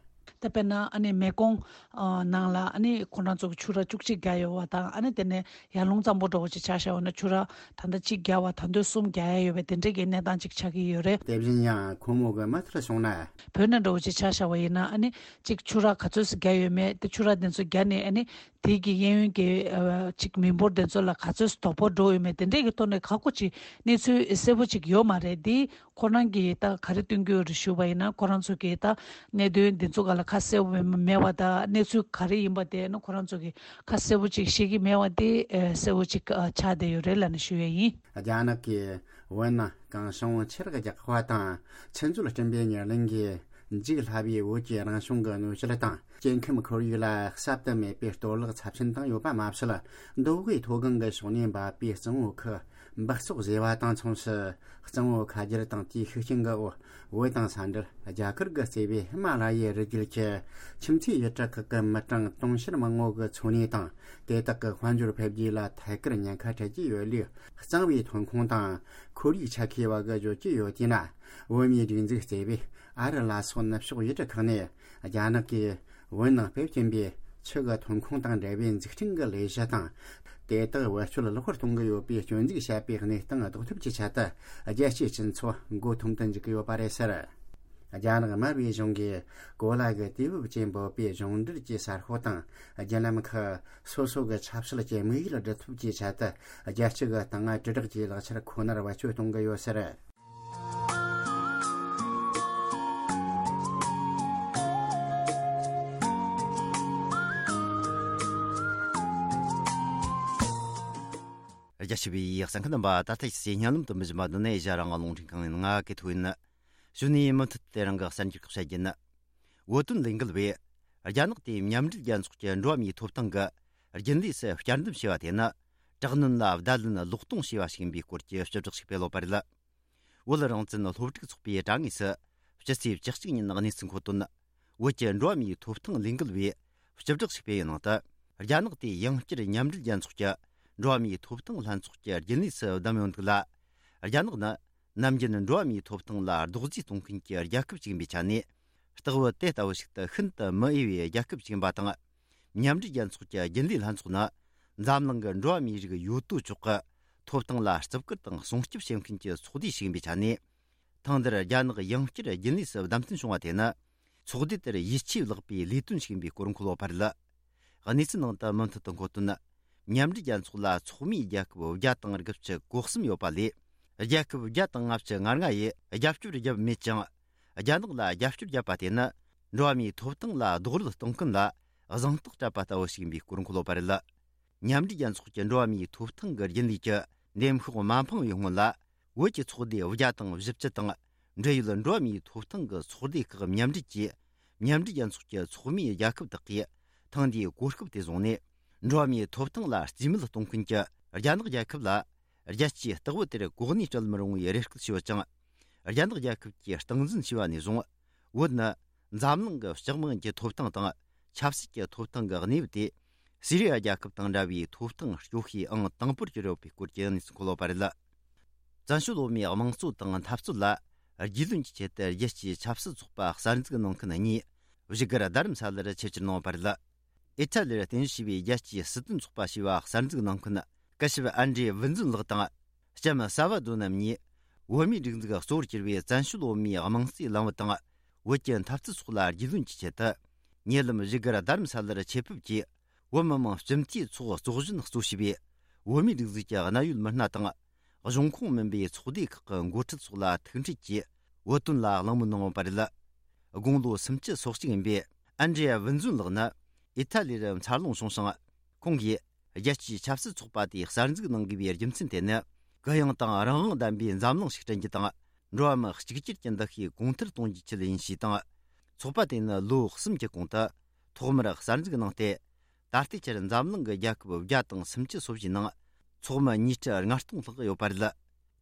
ད་དཔེར་ན་ཨ་ནི་མེ་ཀོང་ཨ་ནང་ལ། ཨ་ནི་ཁོ་རང་ཚོ་གི་ཆུ་རགས་བཅུ་གཅིག་བརྒྱབ་ཡོད་པ་དང་། ཨ་ནི་དེ་ནས་ཡར་ཀླུང་གཙང་པོ་འདྲ་བོ་ཅིག་ཆ་བཞག་པ་ན། ཆུ་རགས་ད་ལྟ་གཅིག་བརྒྱབ་པ། ད་དུང་གསུམ་རྒྱག་ཡ་ཡོད་པའི་དེ་འདྲའི་གི་གནས་སྟངས་ཅིག་ཆགས་ཀྱི་ཡོད་རེད། དེ་བཞིན་ཡང་ཁོ་མོ་གི་མི་ཚོར་གསུངས་ན། བོད་ནང་འདྲ་བོ་ཅིག་ཆ་བཞག་པ་ཡིན་ན། ཨ་ནི་གཅིག་ཆུ་རགས་ག་ཚོད་ཙམ་བརྒྱབ་ཡོད་མེད། དེ་ཆུ་རགས་དེ་ཚོ་བརྒྱབ་ནས། ཨ་ནི་དེ་གི་གཡས་གཡོན་གྱི་ཨ་གཅིག་མི་འབོར་དེ་ཚོ་ལ་ག་ཚོད་དོ་ཕོག་འགྲོ་ཡོད་མེད། དེ་འདྲའི་གི་ཐོག་ནས་ཁག་པོ་ཅིག་གནས་ཚུལ་གསལ་པོ་ཅིག་ཡོད་མ་རེད། དེ་ཁོ་རང་གིས་ད་ག་རེ་སྟོན་གྱི་ཡོད་རེད་ཞུས་པ་ཡིན་ན། ཁོ་རང་ཚོ་གིས་ད་གནད་དོན་འདི་ཚོ་སྒང་ལ་ཁ་གསལ་པོ་མེད་པ་དང་། གནས་ཚུལ་ག་རེ་ཡིན་པ་དེ་ནི་ཁོ་རང་ཚོ་གིས་ཁ་གསལ་པོ་ཅིག་ཤེས་ཀྱི་མེད་པ་དེ་ཨ་གསལ་པོ་ཅིག་ཨ་ཆགས་བསྡད་ཡོད་རེད་ལབ་ནས་ཞུ་ཡས་ཡིན། རྒྱ་ནག་གིས་བོད་ནང་གངས་ཤིང་ཆུ་རགས་རྒྱག་པ་དང་། ཆུ་མཛོད་སྐྲུན་པའི་ཉེར་ལེན་གྱིས་འཇིག་སླ་བའི་བོད་ཀྱི་རང་བྱུང་གི་གནོད་སྐྱེལ་དང་། སྐྱེ་ཁམས་ཁོར་ཡུག་ལ་གསར་དུ་མེད་པའི་གཏོར་བརླག་ཚབས་ཆེན་བཏང་ཡོད་པ་མ་ཟད། མདོ་དབུས་མཐོ་སྒང་གི་ཕྱོགས་ནས་འབབ་པའི་གཙང་བོ་ཁུལ་འབག་བཙོག་བཟོས་པ་དང་མཚུངས་སུ། གཙང་བོ་ཁ་རྒྱུད་དང་དེའི་ཤུགས་རྐྱེན་གྱི་འོག་བོད་དང་ས་འབྲེལ་རྒྱ་གར་གྱིས་གཙོས་པའི་ཧི་མ་ལ་ཡའི་རི་རྒྱུད་ཀྱི་ཁྱིམ་མཚེས་ཡུལ་གྲུ་ཁག་གི་མི་གྲངས་དུང་ཕྱུར་མང་བོ་གི་འཚོ་གནས་དང་། དེ་དག་གི་དཔལ་འབྱོར་འཕེལ་རྒྱས་ལ་ཐད་ཀར་ཉེན་ཁ་འཕྲད་ཀྱི་ཡོད་ལུགས། གཙང་བོའི་ཐོན་ཁུངས་དང་ཁོར་ཡུག་ཆ་མཁས་པ་གིས་བརྗོད་ཀྱི་ཡོད་དེ་ན། བོད་མིའི་སྒྲིག་འཛུགས་གཙོས་པའི་ཨ་རི་ལ་སོགས་ནུབ་ཕྱོགས་ཡུལ་གྲུ་ཁག་ནས། རྒྱ་ནག་གིས་བོད་ནང་སྤེལ་གྱིན་པའི་ཆུ་གི་ཐོན་ཁུངས་དང་འབྲེལ་བའི་འཛུགས་སྐྲུན་གྱི་ལས་གཞི་དང་། དེ་དག་བེད་སྤྱོད་ལོག་པར་གཏོང་གི་ཡོད་པའི་སྐྱོན་འཛུགས་བྱས་པའི་གནས་སྟངས་ཟློག་ཐབས་ཀྱི་ཆེད་དུ། རྒྱལ་སྤྱིའི་སྤྱི་ཚོགས་མགོ་འཐོམ་དུ་འཇུག་གི་ཡོད་པ་རེད་ཟེར། རྒྱ་ནག་དམར་པོའི་གཞུང་གིས་གོ་ལ་གི་དུས་བབ་ཅེས་འབོད་པའི་གཞུང་འབྲེལ་གྱི་གསར་ཤོག་དང་། བརྒྱུད་ལམ་ཁག་སོ་སོ་གི་ཆབ་སྲིད་ཀྱི་དམིགས་ཡུལ་སྒྲུབ་ཐབས་ཀྱི་ཆེད་དུ། རྒྱལ་སྤྱི་གི་དངུལ་དྲིལ་བསྒྲགས་ཀྱི་ལག་ཆར་ཁོ་ནར་བེད་སྤྱོད་གཏོང་གི་ཡོད་ཟེར། རྒྱ་ཆེ་བའི་གསན་མཁན་རྣམ་པ། ད་ལྟ་ཞིག་སྙན་ལམ་དུ་མི་བཞིན་པ་འདི་ནས་ཨེ་ཤ་ཡ་རང་དབང་རླུང་འཕྲིན་ཁང་ཡིན། ང་གི་ཐུག་ཡིན། གཞུག་ནས་མུ་མཐུད་དེ་རང་གི་གསར་འགྱུར་ཁག་བཤད་རྒྱུ་ཡིན། བོད་དོན་ལས་འགུལ་བས། རྒྱ་ནག་དེས་མཉམ་འབྲེལ་རྒྱལ་ཚོགས་ཀྱི་འགྲོ་བ་མིའི་ཐོབ་ཐང་གི་རྒྱུན་ལས་སུ་བསྐྱར་འདེམས་བྱས་པ་དེ་ནི། དྲག་གནོན་ལ་བརྡ་ལན་ལོག་གཏོང་བྱས་པ་ཞིག་ཡིན་པའི་སྐོར་གྱི་སྤྱི་བསྒྲགས་ཤིག་སྤེལ་ཡོད་པ་རེད། བོད་རང་བཙན་སློབ་ཕྲུག་ཚོགས་པའི་དྲ་ངོས་སུ། སྤྱི་ཚེས་བཅུ་གཅིག་ཉིན་གནས་ཚུལ་མཁོ་དོན། བོད་ཀྱི་འགྲོ་བ་མིའི་ཐོབ་ཐང་ལས་འགུལ་བས་སྤྱི་བསྒྲགས་ཤིག་སྤེལ་བའི་ནང་དུ། རྒྱ་ནག་དེས་ཡང་བསྐྱར་མཉམ་འབྲེལ་རྒྱལ་ཚོགས་ཀྱི་འགྲོ་བ་མིའི་ཐོབ་ཐང་ལྷན་ཚོགས་ཀྱི་རྒྱུན་ལས་སུ་བདམས་ཡོད་འདུག་ལ། རྒྱ་ནག་ནི། ནམ་རྒྱུན་འགྲོ་བ་མིའི་ཐོབ་ཐང་ལ་རྡོག་རྫིས་གཏོང་མཁན་གྱི་རྒྱལ་ཁབ་ཅིག་ཡིན་པའི་ཆ་ནས། སྟག་བུ་དེ་ལྟ་བུ་ཞིག་ཏུ་ཤིན་ཏུ་མི་འོས་པའི་རྒྱལ་ཁབ་ཅིག་ཡིན་པ་དང་། མཉམ་འབྲེལ་རྒྱལ་ཚོགས་ཀྱི་རྒྱུན་ལས་ལྷན་ཚོགས་ནི། འཛམ་གླིང་གི་འགྲོ་བ་མིའི་རིགས་ཡོད་དོ་ཅོག་གི་ཐོབ་ཐང་ལ་བརྩི་བཀུར་དང་སྲུང་སྐྱོབ་བྱེད་མཁན་གྱི་ཚོགས་སྡེ་ཞིག་ཡིན་པའི་ཆ་ནས། ཐེངས་འདིར་རྒྱ་ནག་ཡང་བསྐྱར་རྒྱུན་ལས་སུ་བདམས་ཐོན་བྱུང་བ་དེ་ནི། ཚོགས་སྡེ་དེར་ཡིད་ཆེས་བརླག་པའི་ལས་དོན་ཞིག་ཡིན་པའི་སྐོར་འཁོད་ཡོད་པ་རེད། གནས་ཚུལ་ནང་དུ་མུ་མཐུད་དུ་འཁོད་དོན། མཉམ་འབྲེལ་རྒྱལ་ཚོགས་ལ་ཚོགས་མིའི་རྒྱལ་ཁབ་བརྒྱ་དང་དགུ་བཅུ་གོ་གསུམ་ཡོད་པ་ལས། རྒྱལ་ཁབ་བརྒྱ་དང་ལྔ་བཅུ་ང་ལྔ་ཡིས་རྒྱབ་སྐྱོར་བརྒྱབ་མེད་ཅིང་། རྒྱ་ནག་ལ་རྒྱབ་སྐྱོར་བརྒྱབ་པ་དེ་ནི། འགྲོ་བ་མིའི་ཐོབ་ཐང་ལ་རྡོག་རོལ་གཏོང་མཁན་ལ་གཟེངས་རྟགས་སྤྲད་པ་ལྟ་བུ་ཞིག་ཡིན་པའི་སྐོར་འཁོད་ཡོད་པ་རེད། མཉམ་འབྲེལ་རྒྱལ་ཚོགས་ཀྱི་འགྲོ་བ་མིའི་ཐོབ་ཐང་གི་རྒྱུན་ལས་ཀྱི་འདེམས་ཤོག་མ་འཕངས་པའི་སྔོན་ལ། བོད་ཀྱི་ཚོགས་སྡེ་བརྒྱ་དང་བཞི་བཅུ་དང་། འབྲེལ་ཡོད་འགྲོ་བ་མིའི་ཐོབ་ཐང་གི་ཚོགས་སྡེ་ཁག་མཉམ་འབྲེལ་གྱིས། མཉམ་འབྲེལ་རྒྱལ་ཚོགས་ཀྱི་ཚོགས་མིའི་རྒྱལ་ཁབ་དག་གིས། ཐེངས་འདིའི་གོ་སྐབས་དེ་བཟུང་ནས། འགྲོ་བ་མིའི་ཐོབ་ཐང་ལ་རྩིས་མེད་གཏོང་མཁན་གྱི་རྒྱ་ནག་རྒྱལ་ཁབ་ལ། རྒྱལ་སྤྱིའི་སྟེགས་བུ་དེར་གོ་གནས་སྤྲད་མི་རུང་བའི་རེ་སྐུལ་ཞུས་ཡོད་ཅིང་། རྒྱ་ནག་རྒྱལ་ཁབ་ཀྱིས་སྟངས་འཛིན་བྱས་པ་ནས་བཟུང་། བོད་ནི་འཛམ་གླིང་གི་ལྕགས་མང་གི་ཐོབ་ཐང་དང་ཆབ་སྲིད་ཀྱི་ཐོབ་ཐང་གི་གནས་བབ་དེ། སི་རི་ཡ་རྒྱལ་ཁབ་དང་འདྲ་བའི་ཐོབ་ཐང་གཅོག་ཤེས་ཨང་དང་པོར་གྱུར་ཡོད་པའི་སྐོར་གྱི་གནས་ཚུལ་འཁོད་ཡོད་པ་རེད། བཙན་བྱོལ་བོད་མིའི་དམངས་གཙོ་དང་འཐབ་རྩོད་ལ་ རྒྱུས་ལོན་གྱི་ཆེད་དུ་རྒྱལ་སྤྱིའི་ཆབ་སྲིད་ཚོགས་པ་གསར་འཛུགས་གནང་མཁན་གཉིས་བཞུགས་སྒར་རྡ་རམ་ས་ལར་ཆེད་བཅར་གནང་བ་རེད། ཨི་ཐ་ལིར་རྟེན་གཞི་བྱས་པའི་རྒྱལ་སྤྱིའི་སྲིད་དོན་ཚོགས་པ་ཞེས་པ་གསར་འཛུགས་གནང་མཁན་སྐུ་ཞབས་ཨན་ཌྲེ་ཝིན་ཛུན་ལགས་དང་། ལྕམ་ས་བ་དོ་རྣམ་གཉིས་བོད་མིའི་སྒྲིག་འཛུགས་གཙོ་བོར་གྱུར་པའི་བཙན་བྱོལ་བོད་མིའི་དམངས་གཙོའི་ལམ་བུ་དང་། བོད་ཀྱི་འཐབ་རྩོད་སོགས་ལ་རྒྱུས་ལོན་གྱི་ཆེད་དུ། ཉེ་ལམ་བཞུགས་སྒར་རྡ་རམ་ས་ལར་ཆེད་ཕེབས་ཀྱིས། བོད་མི་མང་སྤྱི་འཐུས་ཚོགས་གཙོ་གཞོན་གཙོ་བྱས་པའི་བོད་མིའི་སྒྲིག་འཛུགས་ཀྱི་གནད་ཡོད་མི་སྣ་དང་། གཞུང་ཁོངས་མིན་པའི་ཚོགས་སྡེ་ཁག་གི་འགོ་ཁྲིད་སོགས་ལ་ཐུག་འཕྲད་ཀྱིས་བོད་དོན་ལ་གླེང་མོལ་གནང་བ་རེད། དགུང་ལོ་སུམ་ཅུ་སོ་གཅིག་ཡིན་པའི་ཨན་ཌྲེ་ཝིན་ཛུན་ལགས་ནི་ཨི་ཐ་ལི་རུ་འཚར་ལོངས་བྱུང་ཞིང་། ཁོང་གིས་རྒྱལ་སྤྱིའི་ཆབ་སྲིད་ཚོགས་པ་དེ་གསར་འཛུགས་གནང་དགོས་པའི་རྒྱུ་མཚན་དེ་ནི། གུ་ཡངས་དང་རང་དབང་ལྡན་པའི་འཛམ་གླིང་ཞིག་བསྐྲུན་རྒྱུ་དང་། འགྲོ་བ་མི་གཅིག་གྱུར་གྱི་འདུ་ཤེས་གོང་མཐོར་གཏོང་རྒྱུའི་ཆེད་ཡིན་ཞེས་དང་། ཚོགས་པ་དེ་ནི་ལོ་གསུམ་གྱི་གོང་དུ། ཐོག་མར་གསར་འཛུགས་གནང་སྟེ། ད་ལྟའི་ཆར་འཛམ་གླིང་གི་རྒྱལ་ཁབ་བརྒྱ་དང་སུམ་ཅུ་སོ་བཞིའི་ནང་ཚོགས་མི་ཉིས་ཁྲི་ལྔ་སྟོང་ལྷག་ཡོད་པ་རེད།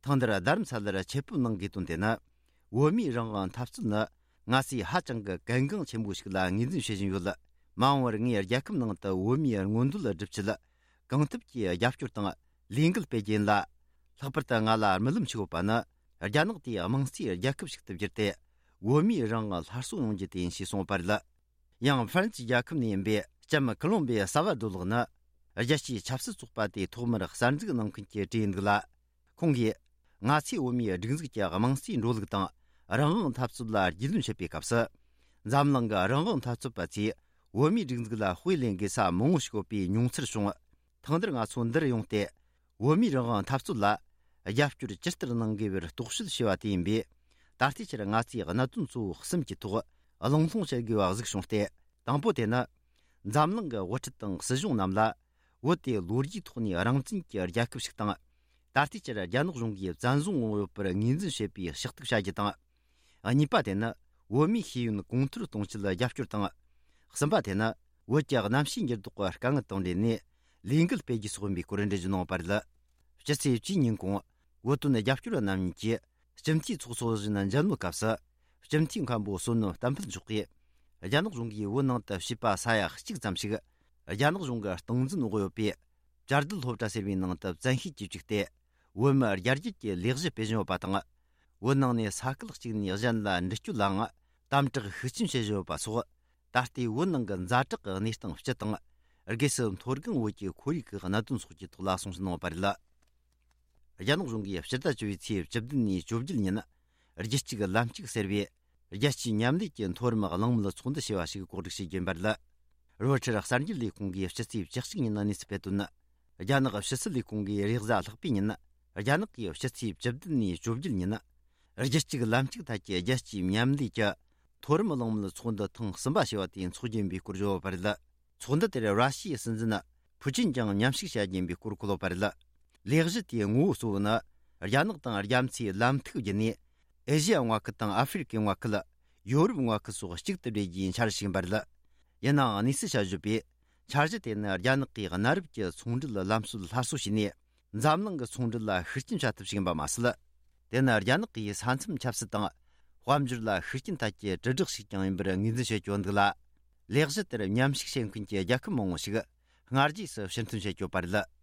ཐེངས་འདིར་རྡ་རམ་ས་ལར་ཆེད་ཕེབས་གནང་དགོས་དོན་དེ་ནི། བོད་མིའི་རང་དབང་འཐབ་རྩོད་ནི་ང་ཚོས་ཧ་ཅང་གི་གལ་འགངས་ཆེན་པོ་ཞིག་ལ་ངོས་འཛིན་བྱེད་བཞིན་ཡོད། མ་འོངས་པར་ངས་རྒྱལ་ཁབ་ནང་དུ་བོད་མིའི་མངོན་འདོད་སྒྲུབ་ཆེད་གང་ཐུབ་ཀྱིས་རྒྱབ་སྐྱོར་དང་ལས་འགུལ་སྤེལ་རྒྱུ་ཡིན་ལ། ལྷག་པར་དུ་ང་ལ་རྨི་ལམ་ཞིག་ཡོད་པ་ནི། རྒྱ་ནག་དེའི་དམངས་གཙོའི་རྒྱལ་ཁབ་ཞིག་ཏུ་བསྒྱུར་ཏེ། བོད་མིའི་རང་དབང་སླར་གསོ་ཡོང་རྒྱུ་དེ་ཡིན་ཞེས་གསུངས་པ་རེད། ཡང་ཧྥ་རན་སིའི་རྒྱལ་ཁབ་ནས་ཡིན་པའི་ལྕམ་ཀོ་ལོམ་བི་ཡ་ས་བ་དོ་ལགས་ནི། རྒྱལ་སྤྱིའི་ཆབ་སྲིད་ཚོགས་པ་དེའི་ཐོག་མར་གསར་འཛུགས་གནང་མཁན་གྱི་གྲས་ཡིན་འདུག་ལ། ཁོང་གིས། ང་ཚོས་བོད་མིའི་སྒྲིག་འཛུགས་ཀྱི་དམངས་གཙོའི་འགྲོ་ལུགས་དང་། རང་དབང་འཐབ་རྩོད་ལ་རྒྱུས་ལོན་བྱེད་པའི་སྐབས་སུ། འཛམ་གླིང་གི་རང་དབང་འཐབ་རྩོད་པ་ཚོས་བོད་མིའི་སྒྲིག་འཛུགས་ལ་དཔེ་ལེན་དགོས་ས་མང་བོ་ཞིག་ཡོད་པའི་མྱོང་ཚོར་བྱུང་། ཐེངས་འདིར་ང་ཚོ་འདིར་ཡོང་སྟེ། བོད་མིའི་རང་དབང་འཐབ་རྩོད་ལ་རྒྱབ་སྐྱོར་ཇི་ལྟར་གནང་དགོས་པར་རྟོག་དཔྱོད་བྱས་པ་དེ་ཡིན་པས། ད་ལྟའི་ཆར་ང་ཚོས་གནད་དོན་གཙོ་བོ་གསུམ་གྱི་ཐོག་གླེང་སློང་བྱེད་དགོས་པ་གཟིགས་བྱུང་སྟེ། དང་པོ་དེ་ནི། འཛམ་གླིང་གི་དབུ་ཁྲིད་དང་སྲིད་གཞུང་རྣམས་ལ། བོད་དེ་ལོ་རྒྱུས་ཐོག་ནས་རང་བཙན་གྱི་རྒྱལ་ཁབ་ཞིག་དང་། ད་ལྟའི་ཆར་རྒྱ་ནག་གཞུང་གིས་བཙན་བཟུང་འོང་ཡོད་པར་ངོས་འཛིན་བྱེད་པའི་ཕྱག་ཐུག་བྱ་རྒྱུ་དང་། གཉིས་པ་དེ་ནི་བོད་མིའི་ཤེས་ཡོན་གོང་མཐོར་གཏོང་ཆེད་རྒྱབ་སྐྱོར་དང་། གསུམ་པ་དེ་ནི་བོད་ཀྱི་གནམ་གཤིས་འགྱུར་ལྡོག་གི་དཀའ་ངལ་དང་འབྲེལ་ནས་ལས་འགུལ་སྤེལ་རྒྱུ་སོགས་ཡིན་པའི་སྐོར་འགྲེལ་བརྗོད་གནང་བ་རེད། སྤྱི་ཚེས་བཅུའི་ཉིན་གུང་། བོད་དོན་རྒྱབ་སྐྱོར་བ་རྣམ་གཉིས་ཀྱིས་སྤྱི་འཐུས་ཚོགས་གཙོ་བཞིན་མཇལ་མོལ་སྐབས་སུ། སྤྱི་འཐུས་མཁན་པོ་བསོད་ནམས་བསྟན་འཕེལ་མཆོག་གིས། རྒྱ་ནག་གཞུང་གིས་བོད་ནང་དུ་བྱིས་པ་ས་ཡ་གཅིག་ཙམ་ཞིག་རྒྱ་ནག་གཞུང་གི་སྟངས་འཛིན་འོག་ཡོད་པའི། བཅའ་སྡོད་སློབ་གྲྭ་ཟེར་བའི་ནང་དུ་བཙན་ཤེད་ཀྱིས་བཅུག་སྟེ། བོད་མི་རྒྱ་སྐྱེད་ཀྱི་ལས་གཞི་སྤེལ་བཞིན་ཡོད་པ་དང་། བོད་ནང་ནས་ས་ཁུལ་གཅིག་ནས་གཞན་ལ་འདྲི་གཅོད་ལའང་དམ་དྲག་ཤུགས་ཆེན་བྱེད་བཞིན་ཡོད་པ་སོགས། ད་ལྟའི་བོད་ནང་གི་ཛ་དྲག་གི་གནས་སྟངས་སྤྱི་དང་། སྒོས་སུ་མཐོ་སྒང་བོད་ཀྱི་ཁོར་ཡུག་གི་གནད་དོན་སོགས་ཀྱི་ཐོག་ལ་གསུང་བཤད་གནང་བ་རེད། རྒྱ་ནག་གཞུང་གིས་སྤྱི་ཟླ་བཅུ་པའི་ཚེས་བཅུ་བདུན་ནས་བཅུ་བརྒྱད་ཉིན། རྒྱུད་གཅིག་ལམ་གཅིག་ཟེར་བའི། རྒྱལ་སྤྱིའི་མཉམ་ལས་ཀྱི་མཐོ་རིམ་གླེང་མོལ་ཚོགས་འདུ་ཞེས་པ་ཞིག་གོ་སྒྲིག་བྱེད་ཀྱིན་པ་རེད། རོའི་ཊར་གསར་འགྱུར་ལས་ཁུངས་ཀྱིས་སྤྱི་ཚེས་བཅུ་གཅིག་ཉིན་གནས་ཚུལ་སྤེལ་དོན། རྒྱ་ནག་ཕྱི་སྲིད་ལས་ཁུངས་ཀྱིས་རེས་གཟའ་ལྷག་པའི་ཉིན། རྒྱ་ནག་གིས་སྤྱི་ཚེས་བཅུ་བདུན་ནས་བཅུ་བརྒྱད་ཉིན། རྒྱུད་གཅིག་ལམ་གཅིག་ཐད་ཀྱི་རྒྱལ་སྤྱིའི་མཉམ་ལས་ཀྱི་མཐོ་རིམ་གླེང་མོལ་ཚོགས་འདུ་ཐེངས་གསུམ་པ་ཞེས་པ་དེ་འཚོགས་རྒྱུ་ཡིན་པའི་སྐོར་བརྗོད་པ་རེད། ཚོགས་འདུ་དེར་ར་ཤི་ཡའི་སྲིད་འཛིན་ཕུ་ཅིན་ཀྱང་མཉམ་ཞུགས་བྱ་རྒྱུ་ཡིན་པའི་སྐོར་འཁོད་ཡོད་པ་རེད། ལས་གཞི་དེའི་ངོ་བོ་གཙོ་བོ་ནི། རྒྱ་ནག་དང་རྒྱ་མཚོའི་ལམ་ཐིག་བརྒྱུད་ནས། ཨེ་ཤི་ཡ་མངའ་ཁུལ་དང་ཨ་ཧྥེ་རི་ཁའི་མངའ་ཁུལ། ཡོ་རོབ་མངའ་ཁུལ་སོགས་གཅིག་ཏུ་སྦྲེལ་རྒྱུའི་འཆར་གཞི་ཞིག་ཡིན་པ་རེད། ཡིན་ནའང་གནས་ཚུལ་བཤད་བརྗོད་པས། འཆར་གཞི་དེ་ནི་རྒྱ་ནག་གིས་གནའ་རབས་ཀྱི་ཚོང་འབྲེལ་ལམ་སྲོལ་སླར་གསོ་བྱས་ནས། འཛམ་གླིང་གི་ཚོང་འབྲེལ་ལ་ཤུགས་རྐྱེན་བྱ་ཐབས་ཤིག་ཡིན་པ་མ་ཟད། དེ་ནི་རྒྱ་ནག་གིས་ས་མཚམས་ཆབ་སྲིད་དང་། དཔལ་འབྱོར་ལ་ཤུགས་རྐྱེན་ཐད་ཀྱི་དྲིལ་བསྒྲགས་ཤིག་ཀྱང་ཡིན་པར་ངོས་འཛིན་བྱེད་ཀྱི་ཡོད་འདུག་ལ། ལས་གཞི་དེར་མཉམ་ཞུགས་བྱེད་མཁན་གྱི་རྒྱལ་ཁབ་མང་བོ་ཞིག་སྔ་རྗེས་སུ་ཕྱིར་འཐེན་བྱེད་ཀྱི་ཡོད་པ་རེད།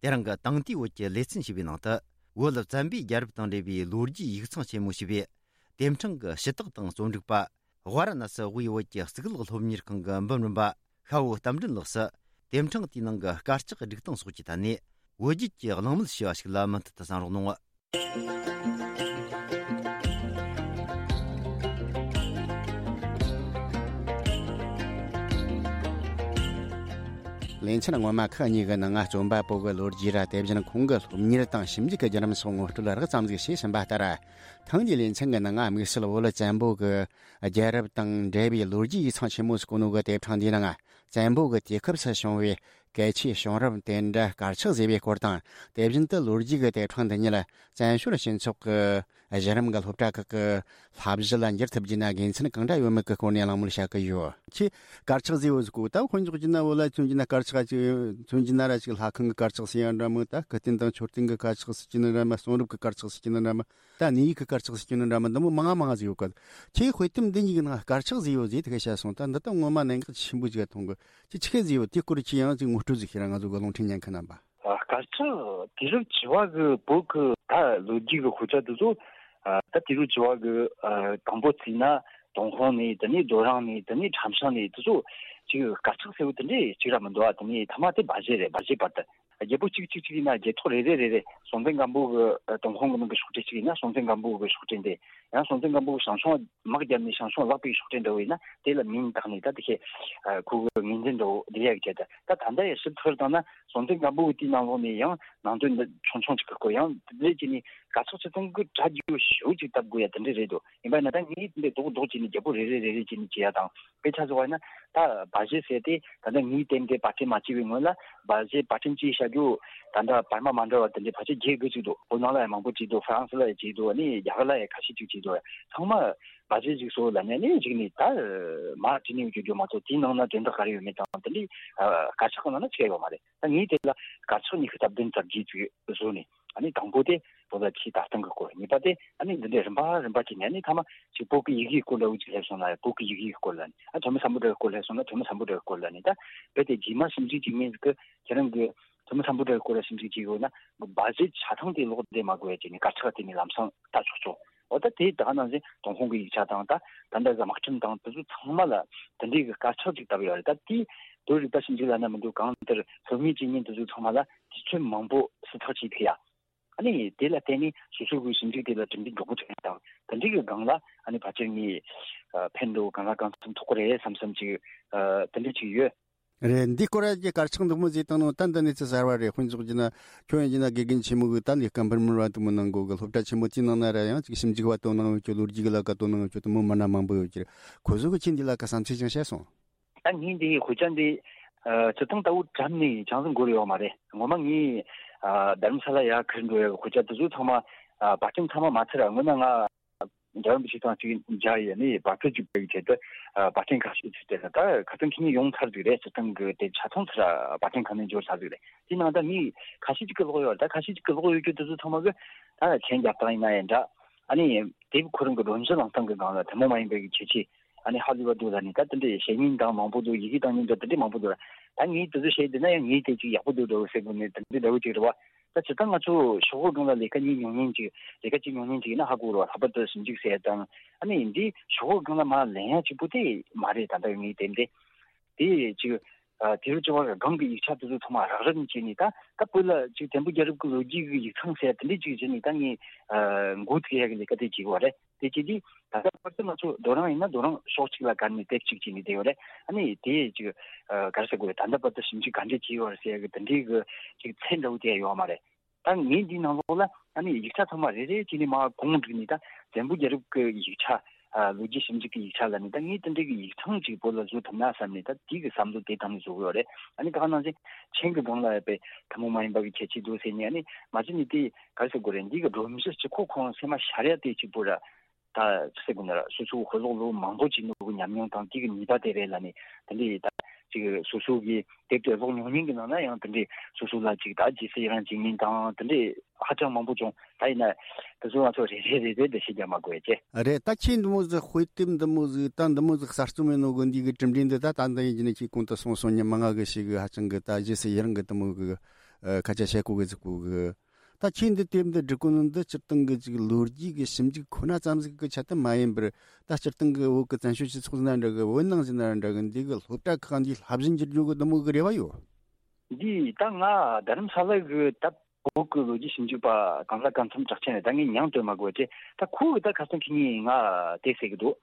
དེ་རིང་གི་དེང་དུས་བོད་ཀྱི་ལེ་ཚན་ཞེས་པའི་ནང་དུ། བོད་བཙན་པོའི་རྒྱལ་རབས་དང་འབྲེལ་བའི་ལོ་རྒྱུས་ཡིག་ཚང་ཆེན་མོ་ཞེས་པའི་དེབ་ཕྲེང་གི་ཞུ་དག་དང་རྩོམ་སྒྲིག་པ། ཝཱ་ར་ཎ་སི་དབུས་བོད་ཀྱི་གཙུག་ལག་སློབ་གཉེར་ཁང་གི་འབུམ་རམས་པ་ཤ་བོ་རྟ་མགྲིན་ལགས་སུ། དེབ་ཕྲེང་དེའི་ནང་གི་དཀར་ཆག་སྒྲིག་སྟངས་སོགས་ཀྱི་ཐད་ནས་བོད་བརྒྱུད་ཀྱི་གླེང་མོལ་ཞེས་པ་ཞིག་ལ་མུ་མཐུད་དུ་གསན་རོགས་གནང་། ལེ་ཚན་སྔོན་མ་ཁག་གཉིས་ཀྱི་ནང་ང་རྩོམ་པ་པོ་གི་ལོ་རྒྱུས་ར། དེ་བཞིན་ཁོང་གི་སློབ་གཉེར་དང་ཞིབ་འཇུག་གི་བརྒྱུད་རིམ་སོགས་ངོ་སྤྲོད་རགས་ཙམ་ཞིག་བྱས་ཟིན་པ་ལྟར། ཐེངས་འདིའི་ལེ་ཚན་གྱི་ནང་ང་དམིགས་བསལ་བོད་བཙན་པོ་གི་རྒྱལ་རབས་དང་འབྲེལ་བའི་ལོ་རྒྱུས་ཡིག་ཚང་ཆེན་མོ་ཟེར་གོ་ནོ་གི་དེབ་ཕྲེང་འདིའི་ནང་བཙན་པོ་གི་དུས་སྐབས་སུ་བྱུང་བའི་གལ་ཆེའི་བྱུང་རབས་དེ་འདྲ་དཀར་ཆག་ཟེར་བའི་སྐོར་དང་། དེ་བཞིན་དུ་ལོ་རྒྱུས་ཀྱི་དེབ་ཕྲེང་འདི་ཉིད་བཙན་བྱོལ་སྤྱི་ཚོགས་ཀྱི་ གཞི་རིམ་གྱི་སློབ་གྲྭ་ཁག་གི་བསླབ་གཞི་ལ་འགྱུར་ཐུབ་རྒྱུ་ན་དགེ་མཚན་གང་འདྲ་ཡོད་མེད་ཀྱི་སྐོར་ནས་གླེང་མོལ་བྱ་གི་ཡོད། ཁྱེད་དཀར་ཆག་ཟེར་བོ་ཟིག་གོ། ད་དཔེ་འཇོག་རྒྱུ་ན་བོད་ལ་མཚོན་རྒྱུ་ན་དཀར་ཆག་ཅིག་མཚོན་རྒྱུ་ན་ར་ཅིག་ལྷ་ཁང་གི་དཀར་ཆག་ཟེར་ཡང་འདྲ་མོ། ད་སྐུ་རྟེན་དང་མཆོད་རྟེན་གྱི་དཀར་ཆག་ཟེར་གྱི་ནི་འདྲ་མོ། གསུང་རབ་ཀྱི་དཀར་ཆག་ཟེར་གྱི་ནི་འདྲ་མོ། ད་གནས་ཡིག་གི་དཀར་ཆག་ཟེར་གྱི་ནི་འདྲ་མོ། འདི་མོ་མང་ང་མང་ང་ཟིག་ཡོད་གི། ཁྱེད་དཔེ་དེབ་འདི་གཉིས་ཀྱི་ནང་དཀར་ཆག་ཟེར་ཡོད་ཟེར་དེ་ག་བཤད་སོང་། ད་འདི་ད་ངོ་མ་གནད་འགག་ཆེན་པོ་ཟིག་མཐོང་གི། ཁྱེད་ཆི་གེ་ཟེར་ཡོད། དེ་སྐོར་ཁྱེད་ཡང་ཅིག་ངོ་སྤྲོད་ཟིག་བྱེད་ར། ང་ཚོ་གི་རླུང་འཕྲིན་ཉན་མཁན་རྣམ་པ། ཨ། དཀར་ཆག་དུས་རབས་བཅུ་བ་གི་བོད་གི་ད་ལོ་རྒྱུས་གི་དཔེ་ཆ་དེ་ཚོ། ཨ། ད་དུས་རབས་བཅུ་བ་གི། ཨ། དང་པོ་བརྩིས་ན་ཏུན་ཧོང་ནས། དེ་ནས་རྡོ་རིང་ནས། དེ་ནས་ཁྲམ་ཤང་ནས། དེ་ཚོ་ཅིག་དཀར་ཆག་ཟེར་བོ་དེ་འདྲས་གཅིག་ར་མི་འདུག་ཨ། དེ་ནས་ཐ་མ་དེ་སྦ་བཞེད་རེད། སྦ་བཞེད་བར་དུ། རྒྱལ་པོ་གཅིག་གཅིག་གཅིག་ཡིན་ན་རྒྱལ་ཐོག་རེ་རེ་རེ་རེ། སྲོང་བཙན་སྒམ་པོ་གི་ཏུན་ཧོང་གི་ནང་གི་ཤོག་དྲིལ་གཅིག་ཡིན་ན་སྲོང་བཙན་སྒམ་པོ་གི་ཤོག་དྲིལ་འདི། ཡང་སྲོང་བཙན་སྒམ་པོ་གི་ཞང་ཞུང་དམག་བརྒྱབ་ནས་ཞང་ཞུང་བརླག་པའི་ཤོག་དྲིལ་འདྲ་བོ་ཡིན་ན་དེ་ལ་མིང་བཏགས་ནས། ད་དེ་ཤེས། ཨ། ཁོ་གི་ངོས་འཛིན་འདྲ་བོ་འདི་ཡག་བྱས། ད་ད་ལྟ་ཡང་ཞིབ་ཚགས་བཏང་ན་སྲོང་བཙན་སྒམ་པོ་གི་དུས་ནང་ལོགས་ནས་ཡང་ནང་དོན་འདི་ཆུང་ཆུང་ཅིག་གི་སྐོར། ཡང་དེ་འདྲས་བྱས་ནས་དཀར་ཆག་སྤྱིར་བཏང་གི་གྲ་རྒྱས་ཞེ་པོ་ཅིག་བཏབ་དགོས་ཡ་དེ་འདྲས་རེད་འདུག། ཡིན་པ་ན་ད་ངས་འདི་རྡོག་རྡོག་བྱས་ནས་རྒྱལ་པོ་རེ་རེ་རེ་རེ་བྱས་ནས་བྱས་ཡ་དང་། དཔེ་ཆ་བཟོ་བ་ཡིན་ན་ད་སྦ་བཞེད་ཟེར་དེ་ད་ལྟ་ངའི་དེབ་འདི་པར་སྐྲུན་མ་བྱས་པའི་སྔོན་ལ་སྦ་བཞེད་པར་སྐྲུན་བྱས་བཞག་རྒྱུ་ད་ལྟ་བར་མ་མ་འདྲ་བ་དེ་འདྲའི་ཕལ་ཆེར་བརྒྱད་དགུ་ཅིག་འདུག། བོད་ནང་ལ་ཡང་མང་པོ་བྲིས་འདུག། ཧྥ་རན་སི་ལ་ཡང་བྲིས་འདུག། ཨ་ནི་རྒྱ་གར་ལ་ཡང་ཁ་ཤས་ཅིག་བྲིས་འདུག། ཚང་མ་སྦ་བཞེད་ཅིག་བཟོ་ལབ་ནས་ཨ་ནི་གཞུག་ནས་ད་མར་བྲིས་ནས་ཡོད་རྒྱུ་མ་གཏོགས་དེའི་ནང་ན་དོན་དག་ག་རེ་ཡོད་མེད་དང་། དེ་འདྲའི་དཀར་ཆག་གི་ནང་ན་ཅི་ཡང་ཡོད་མ་རེད། ད་ངས་དེ་ལ་དཀར་ཆག་ཉི་ཤུ་རྩ་བདུན་རྩ་བརྒྱད་ཅིག་བཟོས་ནས། ཨ་ནི་དང་པོ་དེ་བོད་ལ་ཆེས་ད་ལྟ་གི་སྐོར། གཉིས་པ་དེ་ཨ་ནི་འདི་འདྲའི་རིམ་པ་རིམ་པ་བྱས་ནས། ཨ་ནི་ཐ་མ་ཅིག་བོད་ཀྱི་ཡི་གེའི་སྐོར་འདྲ་བོ་ཅིག་སླེབས་སོང་ན་བོད་ཀྱི་ཡི་གེའི་སྐོར་ལ་ནི། ཨ། ཐོན་མི་སམ་བྷོ་ཊ་གི་སྐོར་སླེབས་སོང་ན་ཐོན་མི་སམ་བྷོ་ཊ་གི་སྐོར་ལ་ནི། ད་རྦད་དེ་རྗེས་མ་ཞིབ་འཇུག་བྱེད་མཁན་ཟིག་གིས་ཁྱེད་རང་གི་ཐོན་མི་སམ་བྷོ་ཊ་གི་སྐོར་ལ་ཞིབ་འཇུག་བྱེད་ཡོད་ན་སྦ་བཞེད་ཆ་ཚང་དེ་ཀློག་བདེ་མ་དགོས་ཡ་བྱས་ནས་དཀར་ཆག་དེ་ནས་ལམ་སང་ལྟ་ཆོག་ཆོག། འོ། ད་དེ་ད་ག་ནང་བཞིན་ཏུན་ཧོང་གི་ཡིག་ཆ་དང་། ད་ད་ལྟ་གི་དམག་ཁྲིམས་དང་དེ་ཚོ་ཚང་མ་ལ་དེ་འདྲའི་གི་དཀར་ཆག་ཅིག་བཏབ་ཡོད་རེད། ད་དེའི་བོད་རིག་པ་ཞིབ་འཇུག་ལབ་ན་མི་འདུག། གང་ལྟར་སློབ་གཉེར་བྱེད་མཁན་དེ་ཚོ་ཚང་མ་ལ་དུས་ཚོད་མང་པོ་སྲིད་ཐག་བཅད་ཐུབ་ཡ། ཨ་ནི་དེ་ལ་བརྟེན་ནས་སོ་སོ་གི་ཞིབ་འཇུག་དེ་ལ་གྲུབ་འབྲས་འགྲོ་གི་ཐོན་དང་། དེ་འདྲའི་གི་སྒང་ལ་ཨ་ནི་ཕལ་ཆེར་ངས་ཨ་ཕན་འདོགས་གང་ལ་གང་འཚམ་ཐོགས་ཀྱི་རེད་བསམ་བསམ་ཅིག། ཨ། དེ་འདྲ་ཅིག་ཡོད། རེད། འདི་སྐོར་གྱི་དཀར་ཆག་འདི་མོ་ཟིག་བཏང་ནོ་ད་འདི་ནི་ཚེ་གསར་བ་རེད། དཔེ་འཇོག་རྒྱུ་ན་ཁྱོད་ཡིན་རྒྱུ་ན་དགེ་རྒན་ཆེན་མོ་གི་ད་ལས་ཀ་འབུར་མོར་བ་དུ་མོ་གནང་གོ་གི། སློབ་གྲྭ་ཆེན་མོ་དེའི་ནང་ན་ར་ཡང་ཅིག་ཞིབ་འཇུག་བ་དོ་སྣང་ཡོད་ཀྱི། ལོ་རྒྱུས་གི་ལ་ཀ་དོ་སྣང་ཡོད་ཀྱི་དུ་མོ་མི་སྣ་མང་པོ་ཡོད་ཀྱི། ཁོ་ཚོ་གི་ཁྱེད་འདི་ལ་ཀ་བསམ་ཚུལ་ཅང་བཤད་སོང་། ད་ངས་འདི་དཔེ་ཆ་འདི་ཨ་སྤྱིར་བཏང་ལྟ་བུ་གྲམ་ནས་ཅང་ཟིག་འགོར་ཡོད་མ་རེད། ངོ་མ་ངས་ཨ་རྡ་རམ་ས་ལ་ཡར་ཁུར་འགྲོ་ཡ་གི་དཔེ་ཆ་དེ་ཚོ་ཚང་མ། ཨ། པར་སྐྲུན་ཚང་མ་མ་ཚར་ར་སྔོན་ན་ང་འཇར་པན་པའི་ཆེད་དང་ཅིག་མཇལ་ཡས་ནས་པར་སྐྲུན་ཅིག་སྤེལ་གྱི་ཆེད་དུ། ཨ། པར་སྐྲུན་ཁ་ཤས་ཅིག་སྤྲད་ལ། ད་ཁ་སང་ཁྱེད་གཉིས་ཡོང་ཚར་ཟིག་རེད། སྤྱིར་བཏང་གི་དེ་ཆ་ཚང་ཚར་ར་པར་སྐྲུན་ཁང་ནས་འབྱོར་ཚར་ཟིག་རེད། དེ་ནང་ད་ངས་ཁ་ཤས་ཅིག་གི་ཀློག་ཡོད་རེད། ད་ཁ་ཤས་ཅིག་གི་ཀློག་ཡོད་རྒྱུ་དེ་ཚོ་ཚང་མ་གི་ད་མཆན་རྒྱབ་སྟངས་ཡིན་ན་ཡང་འདྲ། ཨ་ནི་དེབ་ཁོ་རང་གི་སྒྲོམ་གཞི་བླངས་སྟངས་གི་སྒང་ལ་ཐུན་མོང་མ་ཡིན་པའི་གི་ཁྱད་ཆོས། ཨ་ནི་ཧ་ལས་པ་འདུག་ལབ་ནས། ད་དེ་འདྲའི་བཤད་མཁན་དང་མང་པོ་འདུག། ཡི་གེ་བཏང་མཁན་འདྲ་དེ་འདྲའི་མང་པོ་འདུག། ད་ངས་དེ་ཚོ་བཤད་བསྡད་ན་ཡང་ངས་དེ་ཅིག་ཡག་པོ་འདུག་འདྲ་བོ་ཟེར་དགོས་ནས་དེ་འདྲའི་འདྲ་བོ་ཅིག་རེད་བ། ད་སྤྱིར་བཏང་ང་ཚོ་ཤོག་བུ་སྒང་ལ་ལས་ཀ་གཉིས་ཉོ་མཁན་ཅིག། ལས་ཀ་གཅིག་ཉོ་མཁན་ཅིག་ཡིན་ན་ཧ་གོ་རོགས། ལྷག་པར་དུ་ཞིབ་འཇུག་ཟེར་ཡ་དང་། ཨ་ནི་འདི་ཤོག་བུ་སྒང་ལ་མར་ལེན་ཡ་གཅིག་པུ་དེ་མ་རེད། ད་ལྟ་ངས་བལྟས་ཏེ། དེ་ཅིག། ཨ། དེ་རུ་ཅི་བར་སྒང་གི་ཡིག་ཆ་དེ་ཚོ་ཚང་མ་རག་རག་བྱས་ནས། ད་ད་བོད་ལ་ཅིག་བཙན་པོ་རྒྱལ་རབས་ཀྱི་ལོ་རྒྱུས་ཀྱི་ཡིག་ཚང་ཟེར་ཡ་དེ་འདྲས་ཅིག་བྱས་ནས་ད་ངས། ཨ། འགོ་ཚུགས་ཡ་གི་ལས་ཀ་དེ་བྱེད་དགོས་པ་རེད། དེ་བྱས་དུས་ད་ལྟ་བར་དུ་ང་ཚོ་རྡོ་རིང་ཡིན་ན་རྡོ་རིང་ཕྱོགས་གཅིག་ལ་བཀར་ནས་དེབ་གཅིག་བྱས་ནས་བསྡད་ཡོད་རེད། ཨ་ནི་དེ་ཅིག། ཨ། ག་རེ་ཟེར་དགོས་རེད། ད་ལྟ་བར་དུ་ཞིབ་འཇུག་ག་འདྲས་བྱས་ཡོད་རེད་ཟེར་ཡ་གི་དེ་འདྲའི་གི་ཅིག་ཚད་འདྲ་བོ་དེ་ཡོད་མ་རེད། ད་ངས་འདིའི་ནང་ལོགས་ལ་ཨ་ནི་ཡིག་ཆ་ཚང་མ་རེ་རེ་བྱས་ནས་མར་གོང་བསྒྲིགས་ནས། ད་བཙན་པོ་རྒྱལ་རབས་ཀྱི་ཡིག་ཆ། ཨ། ལོ་རྒྱུས་ཞིབ་འཇུག་གི་ཡིག་ཆ་ལ་ནི་ད་ངས་དེ་འདྲའི་གི་ཡིག་ཚང་ཅིག་བོད་ལ་བཟོ་ཐུབ་ན་བསམ་ནས། ད་དེའི་གི་བསམ་བློ་དེ་དང་ནས་བཟོ་གི་ཡོད་རེད། ཨ་ནི་ད་ག་ནང་བཞིན་མཆན་གི་སྒང་ལ་ཡ་དཔེ་ཐུན་མོང་མ་ཡིན་པ་གི་ཁྱད་ཆོས་འདུག་ཟེར་ནས། ཨ་ནི་མ་གཞི་ནས་དེ་ག་རེ་ཟེར་དགོས་རེད། འདི་གི་སྒྲོམ་གཞི་གཅིག་པོ་ཁོ་རང་སེམས་མ་ཤར་ཡ་དེ་གཅིག་པོ་ར། ད་ཅི་ཟེར་དགོས་ན་ར། སོ་སོའི་དཔེ་ཀློག་ལོ་མང་པོ་བྱས་ནོ་གི་ཉམས་མྱོང་དང་། དེ་གི་ནུས་པ་དེ་རེད་ལབ་ནས། དེ་འདྲའི་ད་ཅིག་སོ་སོ་གི་དེབ་དེ་ཀློག་མྱོང་མཁན་གི་ནང་ན་ཡང་དེ་འདྲའི་སོ་སོ་ལ་ཅིག་ད་རྗེས་སུ་ཡི་རང་བྱེད་མཁན་དང་དེ་འདྲའི་ཧ་ཅང་མང་པོ་བྱུང་། ད་ཡིན་ན་དེ་ཚོ་ང་ཚོ་རེ་རེ་རེ་རེ་འདི་བཤད་རྒྱུ་མ་དགོས་ཀྱི། རེད། ད་ཁྱེད་འདི་མོ་ཟིག་དཔེ་དེབ་འདི་མོ་ཟིག་ད་འདི་མོ་ཟིག་གསར་རྩོམ་ཡིན་ནོ་གི་འདི་གི་གྲུབ་འབྲས་འདི། ད་ད་འདི་ཡིན་གྱི་ནི་ཁྱེད་གོང་དུ་གསུངས་སོང་། མྱི་མང་ང་གི་ཞིག་གི་ཧ་ཅང་གི་ད་རྗེས་སུ་ཡི་རང་གི་དེ་མོ་གི་ཨ་སྐད་ཆ་བཤད་གོ་གི་ཟིག་གོ་གི། ད་ཁྱེད་འདི་དེབ་འདི་སྒྲིག་གོ་ནོ་འདི་སྤྱིར་བཏང་གི་ཅིག་ལོ་རྒྱུས་ཀྱི་ཞིབ་འཇུག་ཁོ་ན་ཙམ་ཟིག་གི་ཆེད་དུ་མ་ཡིན་པར། ད་སྤྱིར་བཏང་གི་བོད་ཀྱི་བཙན་བྱོལ་སྤྱི་ཚོགས་ཟེར་ན་འདྲ་གི། བོད་ནང་ཟེར་ན་འདྲ་གི། འདི་གི་སློབ་གྲྭ་ཁག་འདི་བསླབ་གཞི་འགྱུར་རྒྱུ་གི་འདི་མོ་གི་རེ་བ་ཡོད། འདི་ད་ང་རྡ་རམ་ས་ལ་གི་ད་བོད་ཀྱི་ལོ་རྒྱུས་ཞིབ་འཇུག་པ་གང་ལ་གང་འཚམ་གྲགས་ཆེན་རེད། ད་ངས་མྱིང་བཏོན་མ་དགོས་ཏེ། ད་ཁོ་གི་ད་ཁ་སང་ཁྱེད་གཉིས་ང་དེ་ཟེར་གི་འདུག།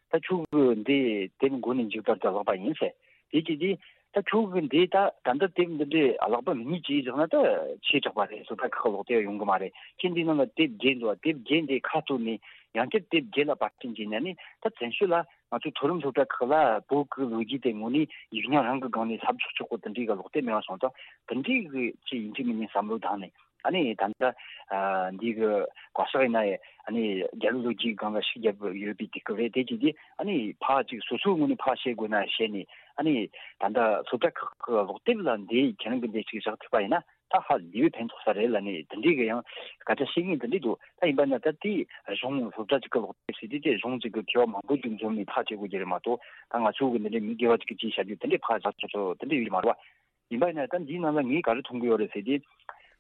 ད་ཁྱོད་ཀྱི་འདི་དེབ་མགོ་ནས་མཇུག་བར་དུ་བཀླགས་པ་ཡིན་ཟེར། དེ་གྱིས་དེ་ད་ཁྱོད་ཀྱི་འདི་ད་ད་ལྟ་དེབ་འདི་འདྲའི་བཀླགས་པ་མི་ཉིས་ཅིག་བཞག་ན་ད་ཆེ་དྲགས་པ་རེད། སློབ་གྲྭ་ཁག་ལོག་སྟེ་ཡོང་གི་མ་རེད། ཁྱེད་འདི་ནང་ལ་དེབ་བརྒྱད་འདུག། དེབ་བརྒྱད་འདི་ཁ་གཏོར་ནས་ཡང་བསྐྱར་དེབ་བརྒྱད་ལ་པར་སྐྲུན་བྱས་ནས་ནི། ད་བཙན་བྱོལ་ལ་ང་ཚོའི་མཐོ་རིམ་སློབ་གྲྭ་ཁག་ལ་བོད་ཀྱི་ལོ་རྒྱུས་དེ་དངོས་གནས་ཡིག་རྙིང་རང་གི་སྒང་ནས་བསླབ་ཆོག་ཆོག་གོ་དེ་འདྲའི་གི་ལོག་སྟེ་མེད་པ་སོང་ཙང་། དེ་འདྲའི་གི་ཅིག་ཡིན་གཅིག་མིན་གཉིས་བསམ་བློ་བཏང་ནས། ཨ་ནི་ད་ལྟ་ཨ་འདི་གི་བཀའ་ཤག་ཡིན་ན་ཡང་ཨ་ནི་རྒྱལ་རབས་ལོ་རྒྱུས་སྒང་ལ་ཤུགས་རྒྱབ་ཡོད་པའི་དུས་སྐབས་རེད། དེ་བྱས་དུས་ཨ་ནི་ཕར་ཅིག་སོ་སོའི་ངོས་ནས་ཕར་བཤད་དགོས་ན་བཤད་ནས། ཨ་ནི་ད་ལྟ་སློབ་གྲྭ་ཁག་གི་ཀློག་དེབ་ལ་འདི་ཁྱེད་རང་གི་འདི་ཅིག་བཞག་ཐུབ་པ་ཡིན་ན་ད་ཧ་ལས་པའི་ཕན་ཐོགས་ས་རེད་ལབ་ནས་དེ་འདྲའི་གི་ཡང་སྐད་ཆ་བཤད་མཁན་དེ་འདྲས་འདུག་ད་ཡིན་པ་ན་ད་དེ་གཞུང་སློབ་གྲྭ་ཅིག་གི་ཀློག་དེབ་ཟེར་དུས་དེ་གཞུང་ཅིག་གི་མཁས་པ་མང་པོ་ཅིག་འཛོམས་ནས་ཕར་བྱེད་དགོས་ཀྱི་རེད་མ་གཏོགས། ད་ང་ཚོ་གི་འདི་འདྲའི་མི་སྒེར་བ་ཅིག་གིས་ཅིག་བྱ་རྒྱུ་དེ་འདྲའི་ཕར་བཞག་ཆོག་ཆོག་དེ་འདྲ་ཡོད་མ་རེད་བ། ཡིན་པ་ཡིན་ན་ད་འདིའི་ནང་ལ་ངས་ག་རེ་མཐོང་གི་ཡོད་རེད་ཟེར་དུས།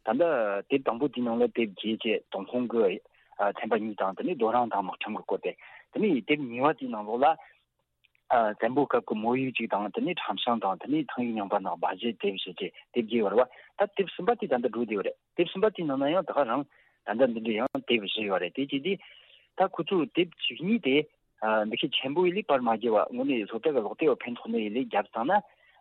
ད་ལྟ་དེབ་དང་པོ་དེའི་ནང་ལ་དེབ་རྒྱས་བྱས་ཏུན་ཧོང་གི་ཨ་ཚན་པ་གཉིས་དང་། དེ་ནས་རྡོ་རིང་དང་དམག་ཁྲིམས་ཀྱི་སྐོར་དེ། དེ་ནས་དེབ་གཉིས་པ་དེའི་ནང་ལོགས་ལ་ཨ་བཙན་པོའི་སྐབས་ཀྱི་མོ་ཡིག་ཅིག་དང་། དེ་ནས་ཁྲམ་ཤིང་དང་། དེ་ནས་ཐང་ཡིག་རྙིང་པ་ནང་སྦ་བཞེད་དེབ་བཞི་བཅས་དེབ་བརྒྱད་ཡོད་རེད་བ། ད་དེབ་གསུམ་པ་དེ་ད་ལྟ་འགྲོ་བསྡད་ཡོད་རེད། དེབ་གསུམ་པ་དེའི་ནང་ན་ཡང་ད་ག་རང་ད་ལྟ་འདི་འདྲའི་ཡང་དེབ་བཞི་ཡོད་རེད། དེ་བྱས་དུས་ད་ཁོ་ཚོ་དེབ་བཅུ་གཉིས་དེ་ཨ་འདི་ཁའི་ཆེན་པོ་ཡི་ལས་པར་མ་བརྒྱབ་པ་དངོས་གནས་སློབ་གྲྭ་གི་ཀློག་དེབ་ལ་ཕན་ཐོགས་ནི་ཡི་ལས་བརྒྱབ་བཏང་ན།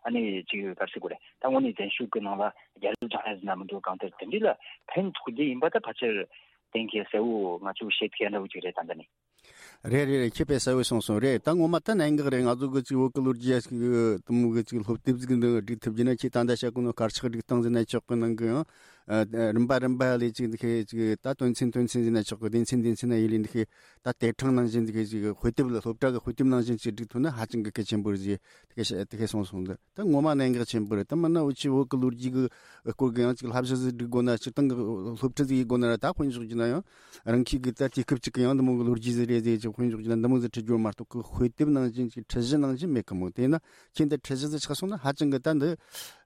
ཨ་ནི་ཅིག་ག་རེ་ཟེར་དགོས་རེད། ད་དངོས་གནས་བཙན་བྱོལ་གི་ནང་ལ་རྒྱལ་རབས་སྦྱང་ཡ་ཟེར་ན་མི་འདུག་གང་ལྟར་དེ་འདྲའི་ལ་ཕན་ཐོགས་རྒྱུ་ཡིན་པ་ད་ཕལ་ཆེར་གཏན་འཁེལ་གསལ་བོ་ང་ཚོས་བཤད་ཐུབ་ཡ་འདྲ་བོ་ཅིག་རེད་ད་ལྟ་ནི། རེད་རེད་རེད། ཁྱེད་དཔེ་གསལ་བོ་གསུངས་སོང་། རེད། ད་ངོ་མ་ད་གནད་འགག་རེད། ང་ཚོ་གི་ཅིག་བོད་གི་ལོ་རྒྱུས་ཡ་ཅིག་དུ་མོ་གི་ཅིག་སློབ་དེབ་ཟིག་འདི་སྒྲིག་ཐུབ་རྒྱུ་ན། ཁྱེད་ད་ལྟ་བཤད་གོ་ནོ་དཀར་ཆག་སྒྲིག་སྟངས་ཟེར་ན་ཆོག་གི། ནང་གི་ཡང་ཨ་རིམ་པ་རིམ་པ་ལས་ཅིག་འདི་ཁའི་ཅིག་ད་དོན་ཚན་དོན་ཚན་ཟེར་ན་ཆོག་གི། སྡེ་ཚན་སྡེ་ཚན་ན་ཡི་ལས་འདི་ཁའི་ད་དེབ་ཕྲེང་ནང་བཞིན་འདི་ཁའི་ཅིག་དཔེ་དེབ་ལ་སློབ་གྲྭ་གི་དཔེ་དེབ་ནང་བཞིན་ཅིག་སྒྲིག་ཐུབ་ན་ཧ་ཅང་གི་གལ་ཆེན་པོ་རེད་ཟེར་དེ་ཁའི་དེ་ཁའི་གསུངས་སོང་། འདི་ད་ངོ་མ་གནད་འགག་ཆེན་པོ་རེད། ད་མིན་ན་འུ་ཆོ་བོད་གི་ལོ་རྒྱུས་གི་སྐོར་གི་ཡང་ཅིག་བསླབ་གཞི་ཟིག་སྒྲིག་དགོས་ན། སྤྱིར་བཏང་གི་སློབ་ཁྲིད་ཟིག་ཡེད་དགོས་ན་ར། ད་དཔེ་འཇོག་རྒྱུ་ན་ཡང་རང་ཁྱིམ་གི་ད་དུས་སྐབས་ཅིག་གི་ཡང་འདི་མོ་གི་ལོ་རྒྱུས་ཟིག་རེད་ཟེར་ཅིག་དཔེ་འཇོག་རྒྱུ་ན་འདི་མོ་ཟིག་ཁྲིད་རྒྱུ་མ་གཏོགས་གི་དཔེ་དེབ་ནང་བཞིན་ཅིག་ཁྲིད་གཞི་ནང་བཞིན་མེད་གི་མོ། དེས་ན་ཁྱེད་འདི་ཁྲིད་གཞི་ཟིག་ཆགས་སོང་ན་ཧ་ཅང་གི་ད་འདི་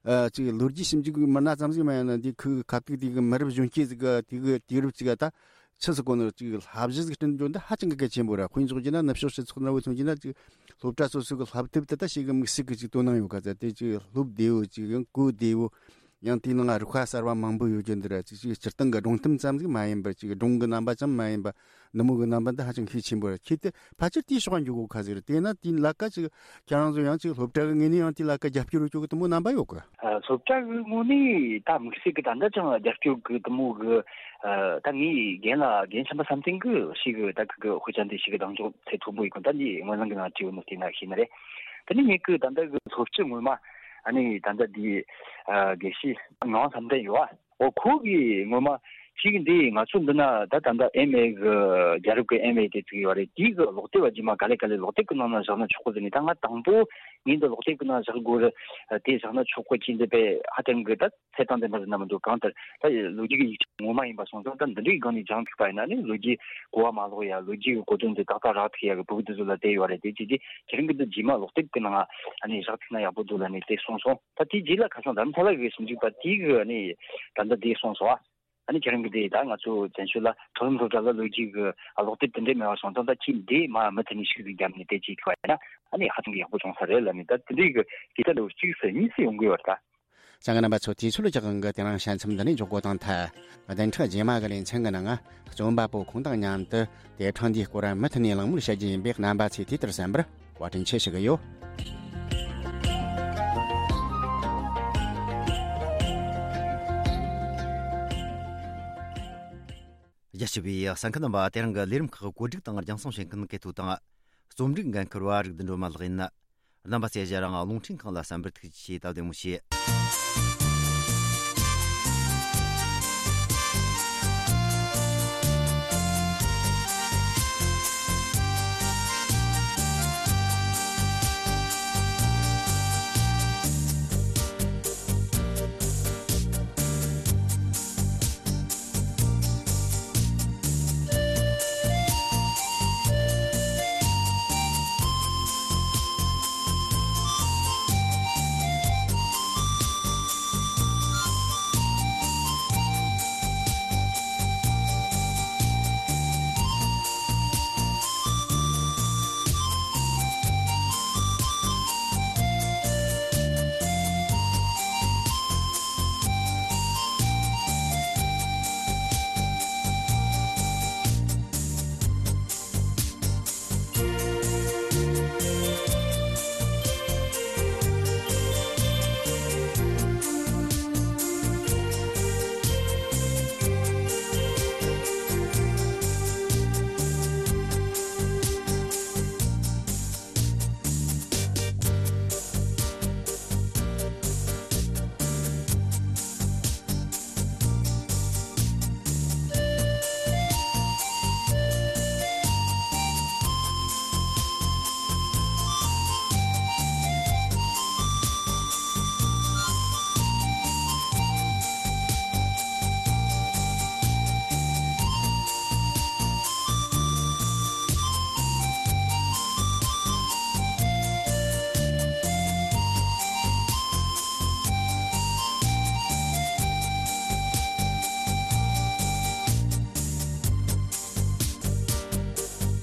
ཨ་ཅིག་ལོ་རྒྱུས་ཞིབ་འཇུག་གི་མི་སྣ་ཙམ་ཟིག་མ་ཡིན་ན། འདི་ཁུ་ཁ་ཐུག་དེ་གི་མི་རབས་གཞོན་སྐྱེས་ཟིག་གི་དེ་གི་དུས་རབས་ཅིག་ག་ད་ཆི་ཟིག་གོ་ནོ་ཅིག་བསླབ་གཞི་ཟིག་བསྐྲུན་རྒྱུ་འདི་ཧ་ཅང་གི་གལ་ཆེན་པོ་ར། དཔེ་འཇོག་རྒྱུ་ན་ནུབ་ཕྱོགས་སྤྱི་ཚོགས་འདྲ་བོ་མཚོན་རྒྱུ་ན་ཅིག་སློབ་གྲྭ་སོ་སོ་གི་བསླབ་དེབ་དེ་ད་ཞིག་གི་དམིགས་བསལ་གི་ཅིག་དོ་སྣང་ཡོད་ག་ཚ། དེ་ཅིག་སློབ་བདེ་བོ་ཅིག་ཡང་གོ་བདེ་བོ། ཡང་དེའི་ནང་རིགས་པ་གསར་བ་མང་པོ་ཡོད་རྒྱུ་འདི་ར། ཅིག་ཅིག་སྤྱིར་བཏང་གི་སྒྲུང་གཏམ་ཙམ་ཟིག་མ་ཡིན་པར་ཅིག་སྒྲུང་གི་རྣམ་པ་ཙམ་མ་ཡིན་པ་འདི་མོ་གི་རྣམ་པ་འདི་ཧ་ཅང་ཤུགས་ཆེན་པོ་རེད། ཁྱེད་དེ་ཕལ་ཆེར་དེའི་ཕྱོགས་འགྱོ་གོ་ཁ་ཟིག་རེད། དེས་ན་དེའི་ལ་ཀ་ཅིག་ཁྱེད་རང་ཚོ་ཡང་ཅིག་སློབ་གྲྭ་གི་ངོས་ནས་ཡང་དེའི་ལ་ཀ་རྒྱབ་སྐྱོར་ཡོད་རྒྱུ་གི་འདི་མོ་རྣམ་པ་ཡོད་གི། ཨ་སློབ་གྲྭ་གི་ངོས་ནས་ད་དམིགས་བསལ་གི་ད་ལྟ་ཅང་རྒྱབ་སྐྱོར་གི་འདི་མོ་གི་ཨ་ད་ངའི་རྒན་ལགས་རྒན་ཆེན་པོ་བསམ་གཏན་གི་ཞིག་གི་ད་གི་གི་དཔེ་ཆ་འདི་ཞིག་གི་གདེང་འཇོག་ཚད་མཐོན་པོ་ཡོད་གི། ད་འདི་སྔོན་ལམ་གི་ནང་བྲིས་ཡོད་ནོ་དེ་ན་ཤེས་ནི་རེད། དེ་ནས་ངེད་ཀྱི་ད་ལྟ་གི་སློབ་སྤྱི་ངོ་མ་ཨ་ནི་ད་ལྟ་འདི་ཨ་དགེ་བཤེས་ངག་དབང་བསམ་གཏན་ཡོད་ཨ། འོ་ཁོ་གིས་ངོ་མ་ཅིག་འདི་ང་ཚོ་འདི་ན་ད་ད་ལྟ་ཨེམ་ཨེ་གི་རྒྱལ་རབས་ཀྱི་ཨེམ་ཨེ་དེ་ཚིག་ཡོད་རེད། དེའི་གི་ཀློག་དེབ་བ་རྗེས་མ་ག་ལེ་ག་ལེ་ཀློག་དེབ་ཀྱི་ནང་ན་བཞག་ན་ཆོག་གི་ཟེར་ནས། ད་ང་དང་པོ་ངས་འདི་ཀློག་དེབ་ཀྱི་ནང་བཞག་དགོས་རེད། དེ་བཞག་ན་ཆོག་གི་ཅིག་འདི་པས་ཧ་ཅང་གི་ད་ཚད་དང་ལྡན་པ་ཟེར་ན་མི་འདུག་གང་ལྟར་ད་ལོ་རྒྱུས་ཀྱི་ཡིག་ཆ་ངོ་མ་ཡིན་པ་སོང་ཙང་། ད་འདི་འདྲའི་སྒང་ནས་སྦྱངས་ཐུབ་པ་ཡིན་ན་ནི་ལོ་རྒྱུས་གོ་བ་མ་ལོག་ཡ། ལོ་རྒྱུས་ཀྱི་གོ་དོན་དེ་ཏག་ཏག་རག་ཐུབ་ཡ་གི་སྤུ་གུ་དེ་ཚོ་ལ་བསྡད་ཡོད་རེད། དེ་བྱས་རྗེས་ཁྱེད་རང་གི་འདི་རྗེས་མ་ཀློག་དེབ་ཀྱི་ནང་ཨ་ནི་བཞག་ཐུབ་ན་ཡག་པོ་འདུག་ལབ་ནས་དེ་གསུངས་སོང་། ད་དེའི་རྗེས་ལ་ཁ་སང་རྡ་རམ་ས་ལ་གི་ཞིབ་འཇུག་པ་དེ་གིས་ཨ་ནི་ད་ལྟ་དེ་གསུངས་སོང་ཨ། ཨ་ནི་ཁྱེད་རང་གི་དེ་ད་ང་ཚོ་བཙན་བྱོལ་ལ་མཐོ་རིམ་སློབ་གྲྭ་ལ་ལོ་རྒྱུས་ཀྱི་ཀློག་དེབ་དེ་འདྲས་མེད་པ་སོང་ཙང་། ད་ཁྱེད་འདི་མ་མུ་མཐུད་ནས་ཤིག་ཟིག་བརྒྱབ་ནས་དེ་བྱེད་ཐུབ་པ་ཡིན་ན་ཨ་ནི་ཧ་ཅང་གི་ཡག་པོ་བྱུང་ས་རེད་ལབ་ནས། ད་དེ་འདྲའི་གི་དེ་ལྟ་ལོ་གཅིག་སེ་གཉིས་སེ་ཡོང་གི་ཡོད་རེད་ད། ལྕམ་རྣམ་པ་ཚོ། དུས་ཚོད་རྒྱག་གི་དེ་རིང་བཤད་མཚམས་འདི་ནས་འཇོག་གོ་དང་ཐལ། བདུན་ཕྲག་རྗེས་མ་གི་ལེ་ཚན་གི་ནང་རྩོམ་པ་པོ་ཁོང་དང་མཉམ་དུ་དེབ་ཕྲེང་འདིའི་སྐོར་མུ་མཐུད་ནས་གླེང་མོལ་བྱ་རྒྱུ་ཡིན་པས། རྣམ་པ་ཚོས་དུས་ལྟར་གསན་པར་བཀའ་དྲིན་ཆེ་ཞུ་གི་ཡོད། རྒྱ་ཆེ་བའི་གསན་མཁན་རྣམ་པ། དེ་རིང་གི་ལས་རིམ་ཁག་གོ་སྒྲིག་དང་རྒྱང་སྲིང་བྱེད་མཁན་སྐལ་ཐོ་དང་། རྩོམ་སྒྲིག་འགན་འཁུར་བ་རིག་ལྡན་སྒྲོལ་མ་ལགས་ཡིན། རྣམ་པ་ཚོས་ང་རང་རླུང་འཕྲིན་ཁང་ལ་གསན་པར་ཐུགས་རྗེ་ཆེ། སྟབས་བདེ་མོ་བྱོས།